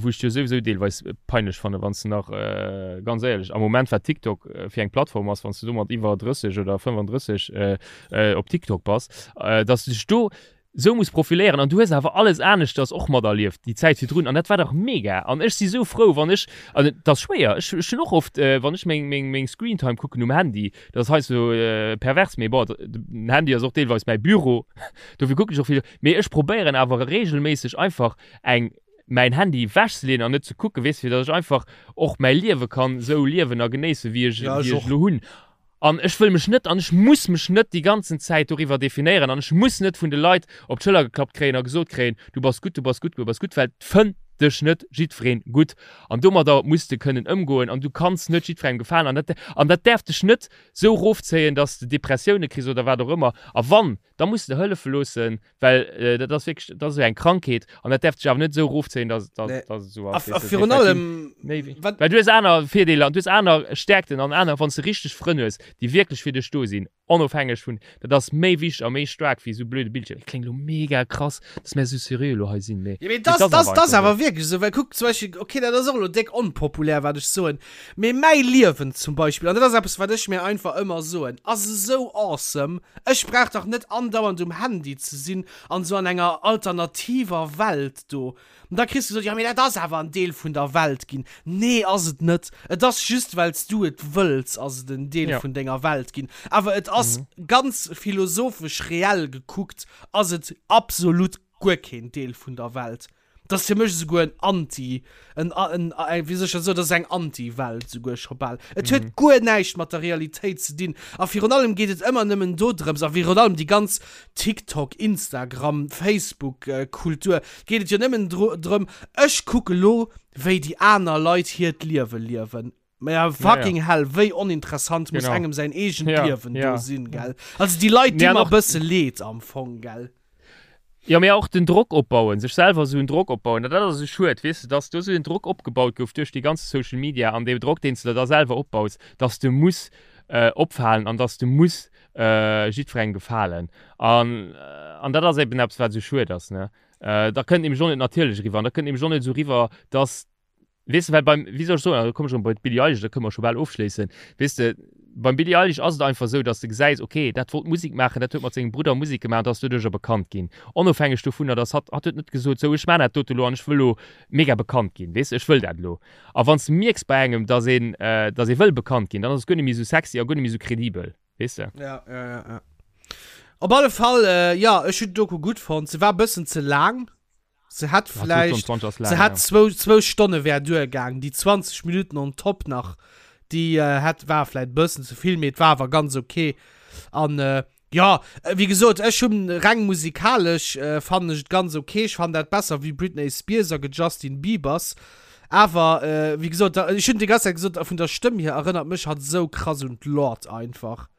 wou ech jo souwisou deelweis peinlech fannen, wann s de nach, ganz éierlech, am Moment wat TikTok fir eng Plattform ass, wann s de domat iwwer 30 oder 35 op TikTok bass, dass de dech do sou muss profiléieren an du hues awer alles aneschters och materlieft déi Zäit virdrun an dat war dach mega an ech si sou frou wann ech, an et ass schwéier, ech ech hunn och oft wann ech meng meng meng Screentime kucken um Handy, dat ass heiansdo pervers, mee bon den Handy ass och deelweis mäi Büro, dofir kucken ech och vill, mee ech probéieren awer reegelméisseg einfach eng mäin Handy ewechzeleeën an net ze kucken, weess fir datt ech einfach och mäi Liewe kann sou liewen a genéissen wéi ech Ja, ech wéi ech och. elo hunn. An ech wëll mech net an ech muss mech net déi ganzen Zäit doriwwer definéieren an ech muss net vun de Leit op d'Schëller geklappt kréien a gesot kréien, du bass gutt, du bass gutt, du bass gutt, well et fënnt dech net jiddwereen gutt an domadder muss de kënnen ëmgoen an du kanns net jiddwerengem gefalen an dat an dat däerf dech net esou erofzéien, dass de Depressioune kriss oder wat och ëmmer. A wann, da muss de der hëllefe loossen, Well dat ass wierklech, dat ass esou eng Krankheet an dat däerf dech awer net esou erofzéien, dass, dass, Nee. dass et esou A, ass. a weess de. virun Well allem, méi wéi, wat, well du hues aner Virdeeler an du hues aner Stärkten an aner, wann s de richteg Frënn hues, déi wierklech fir dech do sinn, onofhängeg vun, dat ass méi wichteg a méi staark wéi esou blöde Bildschierm. Et kléngt elo mega krass, dass mär esou seriö elo hei sinn, mee Ja, mee mee das, et ass das, awer das einfach awer esou. wierklech esou, well kuck zum Beispill, okay, dat ass och elo déck onpopulär, wat ech soen, mee mäi Liewen zum Beispill, an dat ass eppes, wat ech mir einfach ëmmer soen, ass esou awesome, ech brauch dach net andauernd um Handy ze sinn an esou an enger alternativer Welt do. An da kriss du gesot, jo, mee dat ass awer en Deel vun der Welt ginn. Nee, ass et net. Et ass just, well s du et wëlls, ass et en Deel Ja. vun denger Welt ginn. Awer et ass ganz philosophesch reell gekuckt, ass et absolut guer keen Deel vun der Welt. Dat ass fir mech esouguer en Anti, en, en, en, wéi soll ech dat soen, dat ass eng Anti-Welt esouguer scho bal. Et huet guer näischt mat der Realitéit ze dinn. A virun allem geet et ëmmer nëmmen dodrëms, a virun allem déi ganz TikTok, Instagram, Facebook Kultur, geet et jo nëmmen dro, drëm, ech kucke lo, wéi déi aner Leit hiert Liewe liewen. Mä ja, fucking hell, wéi oninteressant muss engem säin eegent Liewen do sinn, gell? Also déi Leit di mer e bësse leed am Fong, gell? Jo, mee och den Drock opbauen, sech selwer esou en Drock opbauen, dat ass esou schued, weess de, dass do esou en Drock opgebaut gouf duerch déi ganz Social Media an dee Drock, deen s de der da selwer opbaus, dass de muss opfalen an dass de muss jiddwerengem gefalen. An, an dat ass eben eppes, wat esou schued ass, ne? Da kënnt nämlech och net natierlech eriwwer an da kënnt nämlech och net esou eriwwer, dass Weess de, well beim, wéi soll ech soen, da komme ech erëm bei d'Billie Eilish, da kënne mer scho bal ofschléissen. Weess de, beim Billie Eilish ass et einfach esou, datt s de gesäis, okay, dat wollt Musek maachen, dat huet mat sengem Brudder Musek gemaach an ass doduercher bekannt ginn. Onofhängeg dovunner, datt hatt, hatt huet net gesot, sou, ech maachen dat dote elo an ech wëll elo mega bekannt ginn, weess de, ech wëll dat elo. A wann s de mierks bei engem, datt een, datt ee wëll bekannt ginn, dann ass et guer net méi esou sexy a guer net méi esou kredibel, weess de. Ja, ja, ja, ja. Op alle Fall, jo, ech hunn d'Doku gutt fonnt. Se war e bëssen ze laang. Se hätt Ja, vläicht, 22 ass laang, se hätt ja. zwou, zwou Stonne wär duergaang. Déi 20 Minuten on top nach, déi äh, hätt, war vläicht bëssen ze vill, mee et war awer ganz okay. An äh, ja, wéi gesot, ech hunn reng musikalesch äh, fannen ech et ganz okay. Ech fannen dat besser wéi Britney Spears a Justin Biebers. Awer äh, wéi gesot, da, ech hunn déi ganz Zäit gesot, vun der Stëmm hier erënnert mech hatt esou krass un d'Lorde einfach.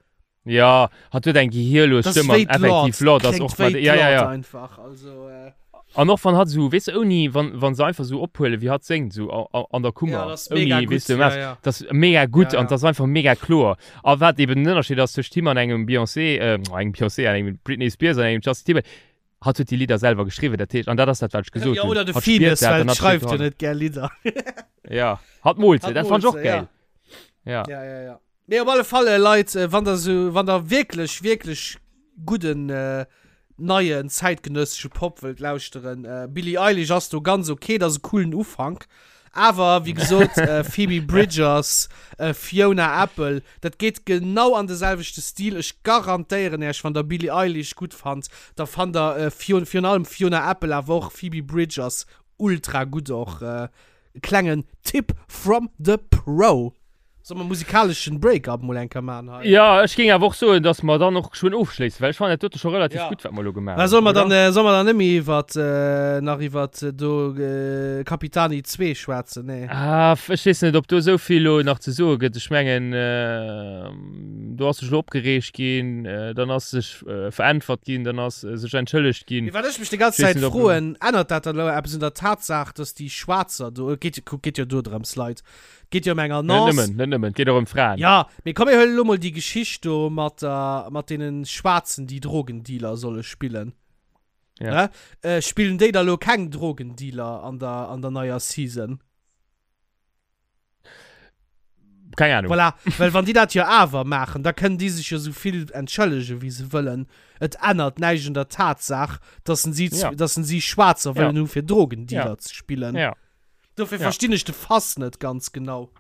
Ja, hat huet eng gehirlos Das Stëmm wéi an effektiv d'Lord, Lord ass kléngt och wéi mat ja ja d'Lord ja. einfach, also äh. An och wann hatt esou, weess de, ouni, wann wann se einfach esou ophuelen wéi hatt séngt esou a a an der Ja, Kummer, dat ass mega ouni, gutt, weess de, ja mess, ja. dat ass mega gutt Ja an ja. dat ass einfach mega kloer. A wat eben den Ënnerscheed ass tëscht him an engem Beyoncé, äh, engem Beyoncé, an engem Britney Spears an engem Justin Timberlake, hatt huet déi Lidder selwer geschriwwen, dat heescht, an dat ass dat wat ech gesot Ja, hunn, oder de hatt spiert Finneas, dat well an hatt steet schreift jo dohanner. net gär Lidder. Ja, hatt moolt se, Hatt dat fannt moolt ech och se, ja. gäil. Ja. Ja, ja, ja. Nee, op alle Fall, äh, Leit, äh, wann der so, wann der wierklech, wierklech gudden, äh, neien zäitgenëssesche Pop wëllt lauschteren, äh, Billie Eilish ass do ganz okay, dat ass e coolen Ufank. Awer, wéi gesot, äh, Phoebe Bridgers, äh, Fiona Apple, dat geet genau an de selwechte Stil. Ech garantéieren Äech, wann der Billie Eilish gutt fannt, da fannt der, äh, Fion, virun allem Fiona Apple, awer och Phoebe Bridgers ultra gutt och. Äh, klengen Tipp from the Pro. Soll mer musikaleschen Break-up mol eng Kéier man hei? Jo, ech géing awer och soen, dass mer dann och geschwënn ofschléissen, well ech fannen dat dote scho relativ Ja. gutt, wat mer elo gemaach Mä hunn, soll mer oder? dann, äh, soll mer dann net méi iwwert, äh, nach iwwert äh, do äh, Capitani 2 schwätzen? Nee. Ah, f- ech weess net, ob do esou vill elo nach ze soe gëtt. Ech mengen, äh, do ass sech elo opgereegt ginn, äh, dann ass sech äh, veräntwert ginn, dann ass äh, sech entschëllegt ginn. Mee wat ech mech déi ganz Ech weess Zäit net, ob- froen, ännert dat dann elo eppes un der Tatsaach, dass déi Schwaarzer do, et geet, kuck, geet jo do drëms, Leit, Geet jo ëm eng Net Annonce. nëmmen, net nëmmen, et geet och ëm Fraen. Ja, mee komm mir huelen elo mol déi Geschicht do mat der, mat deenen Schwaarzen, déi Drogendealer solle spillen. Ja. Ne? Äh, spillen déi da lo keng Drogendealer an der, an der neier Season? Keng Ahnung. Voilà, well wann déi dat jo awer maachen, da kënnen déi sech jo sou vill entschëllegen, wéi se wëllen. Et ännert näischt un der Tatsaach, dass en si, Ja. dass en si Schwaarzer Ja. wëllen hu fir Drogendealer Ja. ze spillen. Ja. Dofir Ja. verstinn ech de Fass net ganz genau.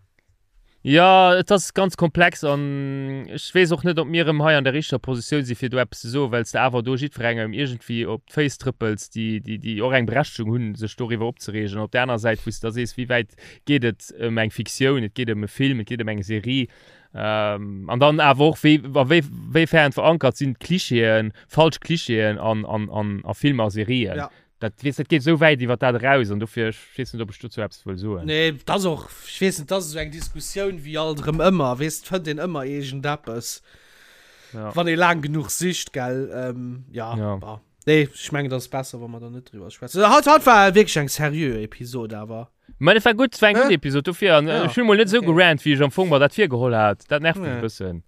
Ja, et ass ganz komplex an ech weess och net, ob mir erëm hei an der richteger Positioun si fir do eppes ze soen, well s de awer do jiddwerengem iergendwéi op d'Féiss trëppels, déi, déi, déi och eng Berechtegung hunn, sech doriwwer opzereegen. An op där aner Säit, wou s de da sees, wéi wäit geet et ëm eng Fiktioun, et geet ëm e Film, et geet ëm eng Serie, an dann awer och, wéi, a wéi, wéifern verankert sinn d'Klichéen, falsch Clichéen an, an, an, a Filmer a Serien. Ja. Dat, weess, dat geet esou wäit iwwer dat eraus an dofir, ech weess net, ob ech dozou eppes wëll soen. Nee, dat ass och, ech weess net, dat ass esou eng Diskussioun wéi alt erëm ëmmer, weess, et fënnt een ëmmer iergendeppes, Ja. wann ee laang genuch sicht, gell. Ähm, ja, Ja. bah. Nee, ech mengen, dat ass besser, wa mer da net driwwer schwätzen. Haut, haut war wierklech eng seriö Episod awer. Mä et war gutt, et war eng gutt Hä? Episod dofir an Ja, ech hunn emol net esou okay. gerant, wéi ech am Fong mer dat virgeholl hat. Dat nervt mech Nee. e bëssen.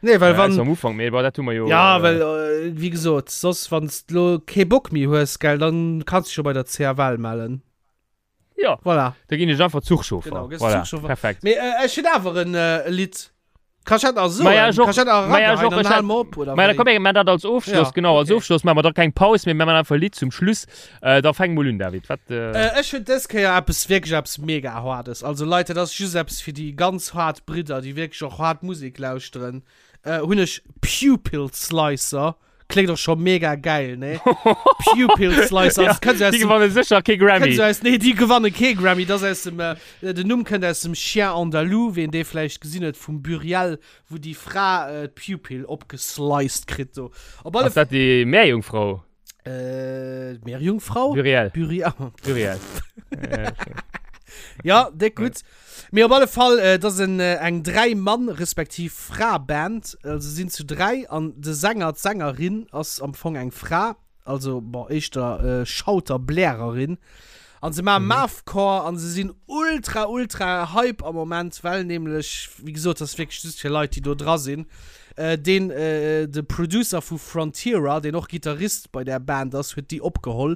Nee, well Äh, wann. am Ufank, mee bon, dat hu mer jo. Ja, äh, well, äh, wéi gesot, soss, wann s de lo kee Bock méi hues, gell, dann kanns de dech jo bei der CFL mellen. Ja. Voilà. Da ginn ech einfach Zuchchauffer. Genau, gëss voilà. Zuchchauffer. Perfekt. Mee äh, ech hunn awer en äh, Lidd. Kann ech dat nach soen? Ma ja, ech och. Kann ech dat nach Ma ja, ech erageheien? och. Dann Ech hale hat- mer op, oder Ma da wéi? komm, mir maachen dat als Ofschloss, Ja, genau, als okay. Ofschloss maache mer da keng Paus, mee mir maachen einfach e Lidd zum Schluss. Äh, da fäng mol un, David. Wat, äh, Äh, ech hunn dës Kéier eppes, wierklech eppes mega Hardes. Also Leit, dat ass just eppes fir déi ganz hart Bridder, déi wierklech och hart Musek lauschteren. Äh, hunn ech Pupil Slicer. Kléngt och scho mega gäil, ne? Pupil Slicer. Ja, Das kënnt aus déi dem, gewanne sécher kee Grammy. kënnt aus, nee, déi gewanne kee Grammy. Das aus dem, äh, den Numm kënnt aus dem Chien Andalou, ween dee vläicht gesinn huet, vum Buriel, wou déi Fra äh, d'Pupil opgesliced kritt do. Op alle Ass dat déi Meerjungfrau? Äh, Meerjungfrau? Buriel. Buriel. Buriel. ja, déck gutt. Mee op alle Fall, äh, dat ass en, äh, eng Dräi-Mann respektiv Fra-Band. Also se sinn zu dräi an de Sänger, d'Sängerin ass am Fong eng Fra, also bon, éischter äh, Schauter, Blärerin. An se maachen Mathcore an se sinn ultra, ultra Hype am Moment, well nämlech, wéi gesot, dat ass wierklech just fir Leit, déi do dra sinn, deen, de Producer vu Frontierer, deen och Gittarist bei där Band ass, huet déi opgeholl.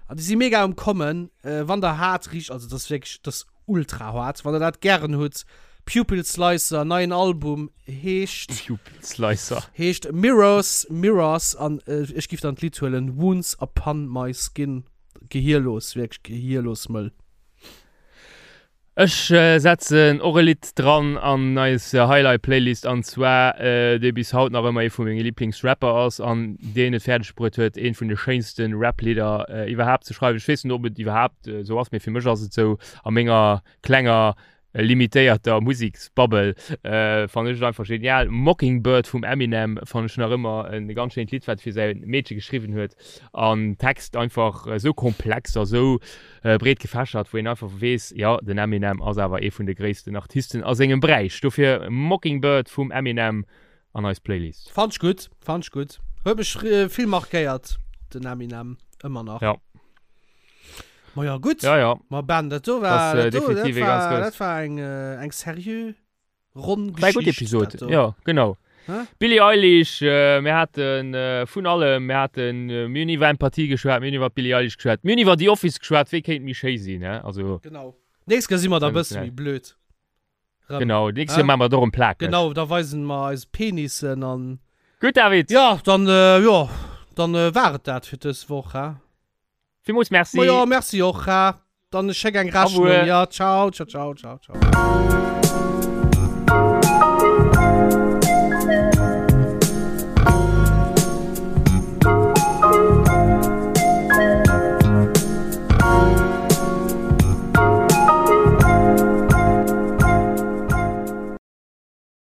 An déi si mega um Kommen. Wann der haart richt, also dat ass wierklech, dat ass ultra haart, wann der dat gären hutt, Pupil Slicer, neien Album, heescht. Pupil Slicer. Heescht Mirrors, Mirrors an ech giff dann d'Lidd huelen, Wounds Upon My Skin. Gehierlos, wierklech gehierlos mëll. Ech setzen och e Lidd dran an eis Highlight Playlist an zwar dee bis haut nach ëmmer ee vu menge Liblingsrapper ass an deen et fäerdeg bruet huet eent vun de schéinste Rap-Lidder iwwerhaapt ze schreiwen. Ech weess net ob et iwwerhaapt esou ass, mee fir mech ass et esou a menger klenger limitéierter Museksbubble fannen ech et einfach genial. Mockingbird vum Eminem fannen ech nach ëmmer e ganz schéint Lidd, wat fir säi Meedche geschriwwen huet an Text einfach esou komplex a sou breet gefächert, wou een einfach weess, jo den Eminem ass awer ee vun de gréissten Artisten a sengem Beräich. Dofir Mockingbird vum Eminem an eis Playlist. Fand ech gutt, fand ech gutt. Huet mech vill markéiert den Eminem, ëmmer nach. Ja. Ma ja, gutt. Ja, ja. Ma Ben, dat do war, dat do, dat war, dat war eng, eng seriö ronn Geschicht. War gutt Episod, ja, genau. Hä? Billie Eilish, äh, mir haten äh, vun allem, mir haten, äh, mir hunn iwwer Empathie geschwat, mir hunn iwwer Billie Eilish geschwat, mir hunn iwwer The Office geschwat, wéi kéint méi schéi sinn, hä? Also. Genau. Nächst Kéier si mer da bësse méi blöd. Rëm. Genau, nächst Kéier maache mer et och erëm plakeg. Genau, da weisen mer eis Penissen an. Gutt, David! Ja, dann, äh, jo, dann äh, war et dat fir dës Woch, hä? Villmools merci. Ma jo, merci och, hä? Dann schéck eng Rechnung. Ja, ciao, ciao, ciao, ciao, ciao.